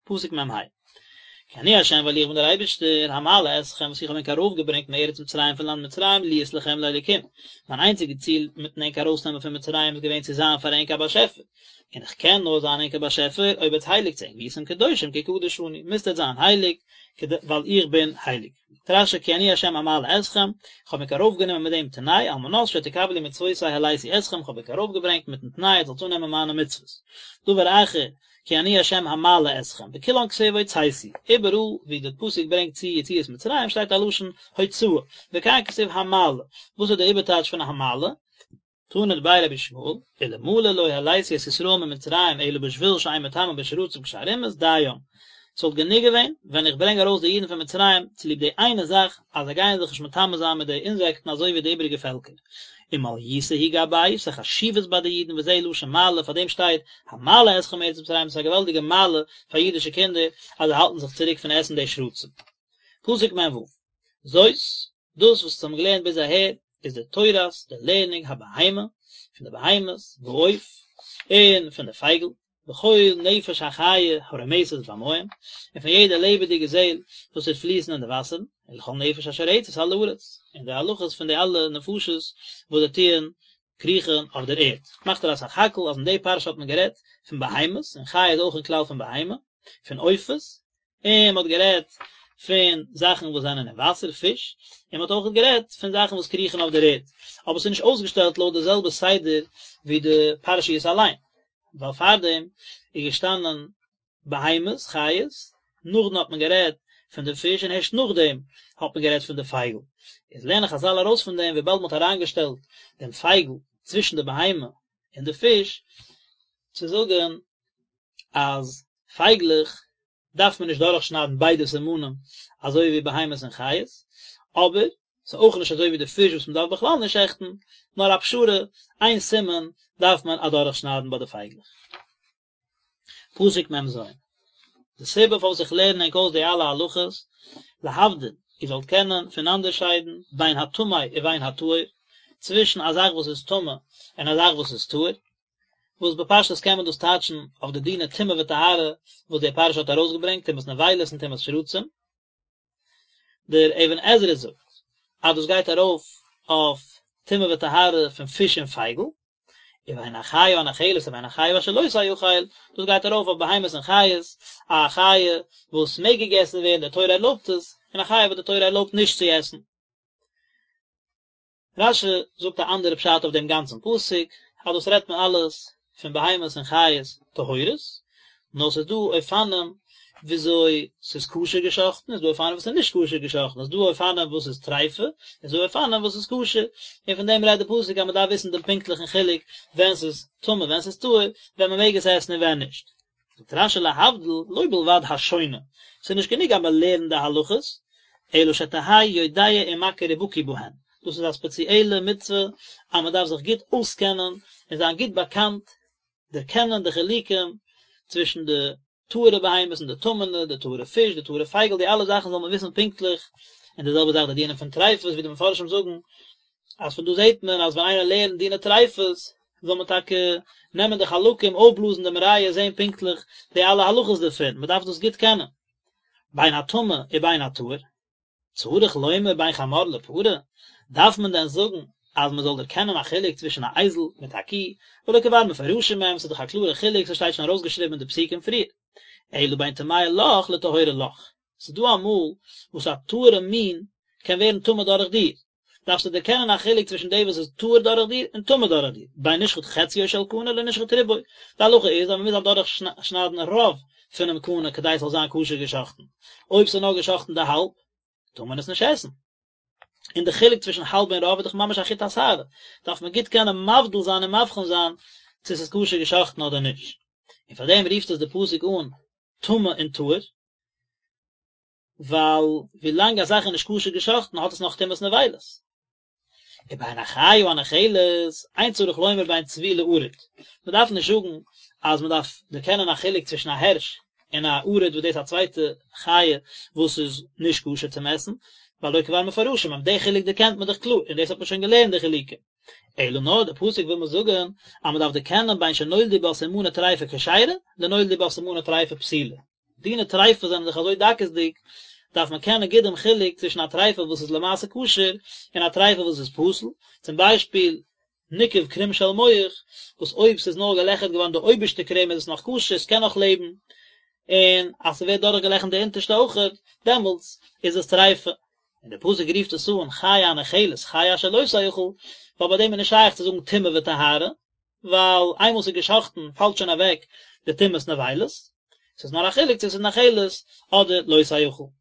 פסוק מ ה, כי אני ה' ווייל איך בין דער אייבערשטער, המעלה אתכם וואס איך האב ענק ארויפגעברענגט מארץ מצרים פון לאנד מצרים להיות לכם לאלוקים, מיין איינציגע ציל מיטן ענק ארויסנעמען פון מצרים איז געווען צו זיין פאר ענק א באשעפער, און איך קען נאר זיין ענק א באשעפער אויב עטס הייליגטס ענק, והייתם קדושים כי קדוש אני, מוזט עטס זיין הייליג, ווייל איך בין הייליג. זאגט רשי כי אני ה' המעלה אתכם, איך האב ענק ארויפגענומען מיט דעם תנאי, על מנת שתקבלו מצוותי העליתי אתכם, איך האב ענק ארויפגעברענגט מיטן תנאי עטס זאלטס אננעמען מיינע מצוות. דבר אחר, כי אני ה' המעלה אתכם, בכולן כתיב הוצאתי, איבעראל ווי די פסוק ברענגט צו יציאת מצרים שטייט א לשון הוצאה, וכאן כתיב המעלה, וואס איז די איבערטייטש פון המעלה? תנא דבי רבי ישמעאל, אלמלא לא העליתי את ישראל ממצרים אלא בשביל שאין מטמאין בשרצים כשאר אומות, דים, ס'וואלט גענוג געווען ווען איך ברענג ארויס די אידן פון מצרים צוליב די איינע זאך אז זיי גייען זיך נישט מטמא זיין מיט די אינזעקטן אזוי ווי די איבעריגע פעלקער. ומעליותא היא גבייהו, ס'איז א חשיבות ביי די אידן וזה לשון מעלה, פאר דעם שטייט המעלה אתכם מארץ מצרים, ס'איז א געוואלדיגע מעלה פאר אידישע קינדער אז זיי האלטן זיך צוריק פון עסן די שרצים. פסוק מ ו, זאת, דאס וואס אונז האבן געלערנט ביז אהער איז די תורת, די לערנונג הבהמה, פון די בהמות, והעוף, און פון די פייגל, וכל נפש החיה הרומשת במים, און פון יעדע לעבעדיגע זעל וואס טוט פליסן אין די וואסערן, ולכל נפש אשר רצת על הארץ, און די הלכות פון די אלע נפשות וואס זיי טוען קריכן אויף דער ערד. מאכט ער א סך הכל אז אין די פרשה האט מען גערעדט פון בהמות, און חיה איז אויך אין כלל פון בהמה, פון עופות, און מען האט גערעדט פון זאכן וואס זענען אין וואסער, פיש, און מען האט אויך גערעדט פון זאכן וואס קריכן אויף דער ערד, אבער עס איז נישט אויסגעשטעלט לויט די זעלבע סדר ווי די פרשיות אליין, ווייל פארדעם איז געשטאנען בהמות, חיות, נאכדעם האט מען גערעדט פון די פיש און הערשט נאכדעם האט מען גערעדט פון די פייגל. איז לערנען חזל ארויס פון דעם וויבאלד מען האט אריינגעשטעלט דעם פייגל צווישן די בהמה און די פיש, צו זאגן אז פייגלעך דארף מען נישט דורכשניידן ביידע סימנים אזוי ווי בהמות און חיות, אבער ס'איז אויך נישט אזוי ווי די פיש וואס מ'דארף בכלל נישט שעכטן, נאר א פשרה, איין סימן דארף מען אדורכשניידן ביי די פייגלעך. פסוק מ ז. די סיבה פארוואס איך לערן ענק אויס די אלע הלכות, להבדיל, איר זאלט קענען פונאנדערשיידן בין הטמא ובין הטהור, צווישן א זאך וואס איז טמא און א זאך וואס איז טהור, וואס בפשטות קען מען דאס טייטשן אויף די דיני טומאה וטהרה וואס די פרשה האט ארויסגעברענגט, טומאת נבילות און טומאת שרצים. דער אבן עזרא זאגט אז דאס גייט ארויף אויף טומאה וטהרה פון פיש און פייגל, ובין החיה הנאכלת ובין החיה אשר לא תאכל, דאס גייט ארויף אויף בהמות און חיות, א חיה וואס מעג געגעסן ווערן, די תורה ערלויבט עס, און א חיה וואס די תורה ערלויבט נישט צו עסן. רשי זאגט א אנדערע פשט אויף דעם גאנצן פסוק, אז דאס רעדט מען אלעס פון בהמות און חיות טהורות, נאר ס'איז דא אופנים וויאזוי ס'איז כשר געשאכטן, איז דא אופנים וואס איז נישט כשר געשאכטן, איז דא אופנים וואס איז טריפה, איז דא אופנים וואס איז כשר, און פון דעם רעדט די פסוק אז מ'דארף וויסן דעם פונקטליכן חילוק ווען ס'איז טמא ווען ס'איז טהור, ווען מ'מעג עס עסן און ווען נישט. זאגט רשי להבדיל לא בלבד השונה, ס'איז נישט גענוג אז מען לערנט די הלכות, אלא שתהא יודע ומכיר ובקי בהן, דאס איז א ספעציעלע מצוה אז מען דארף זיך גוט אויסקענען און זיין גוט באקאנט, דערקענען די חילוקים צווישן די טהור'ע בהמות און די טמא'נע, די טהור'ע פיש, די טהור'ע פייגל, די אלע זאכן זאל מען וויסן פונקטליך, און די זעלבע זאך די דינים פון טריפות ווי די מפרשים זאגן אז פון דא זעט מען אז ווען איינער לערנט דיני טריפות זאל מען טאקע נעמען די חלקים אויפבלאזן דעם ריאה זען פונקטליך די אלע הלכות דערפון, מען דארף דאס גוט קענען. בין הטמא ובין הטהור, צריך לומר בין חמור לפרה, דארף מען דען זאגן אז מען זאל דערקענען א חילוק צווישן א אייזל מיט א קי, והלא כבר מפורשים הם, ס'איז דאך א קלארע חילוק, ס'שטייט שוין ארויסגעשריבן אין די פסוקים פריער. אלא בין טמאה לך לטהורה לך, ס'איז דא אמאל וואס א טהור'ע מין קען ווערן טמא דורך דיר, דארפסטו דערקענען א חילוק צווישן די וואס איז טהור דורך דיר און טמא דורך דיר, בין נשחט חציו של קנה לנשחט רובו, די הלכה איז אז מען מוז אדורך שניידן רוב פונעם קנה כדי עס זאל זיין כשר געשחטן, אויב ס'איז נאר געשחטן די האלב, טאר מען עס נישט עסן. און די חילוק צווישן האלב און רוב איז דאך ממש א חוט השערה, דארף מען גוט קענען מבדיל זיין און מבחין זיין צו ס'איז כשר געשחטן אדער נישט. און פאר דעם רופט עס די פסוק אן טמא און טהור. ווייל ווילאנג א זאך איז נישט כשר געשחטן האט עס נאך טומאת נבילות. ובין החיה הנאכלת, אין צריך לומר בין צבי לערוד. מען דארף נישט זאגן אז מען דארף דערקענען א חילוק צווישן א הערש און א ערוד וואס דאס איז א צווייטע חיה וואס איז נישט כשר צום עסן, והלא כבר מפורשים הם, די חילוק דערקענט מען דאך קלאר, און דאס האט מען שוין געלערנט די חילוקים. אלא נאר די פסוק וויל מיר זאגן אז מען דארף דערקענען בין שנולדו בה סימני טריפה כשרה לנולדו בה סימני טריפה פסולה. דיני טריפה זענען דאך אזוי דקות'דיג, דארף מען קענען גוט דעם חילוק צווישן א טריפה וואס איז למעשה כשר און א טריפה וואס איז פסול, צום ביישפיל, ניקב קרום של מח, וואס אויב ס'איז נאר געלעכערט געווארן די אויבערשטע קרום איז עס נאך כשר, ס'קען נאך לעבן, און אז ס'ווערט דורכגעלעכערט די אונטערשטע אויכעט, דעמאלטס איז עס טריפה. און דער פסוק רופט עס אן חיה הנאכלת, חיה אשר לא תאכל, ווייל ביי דעם איז נישט שייך צו זאגן טומאה וטהרה, ווייל איינמאל ס'איז געשחט'ן פאלט שוין אוועק די טומאת נבילות, ס'איז נאר א חילוק צו ס'איז נאכלת אדער לא תאכל.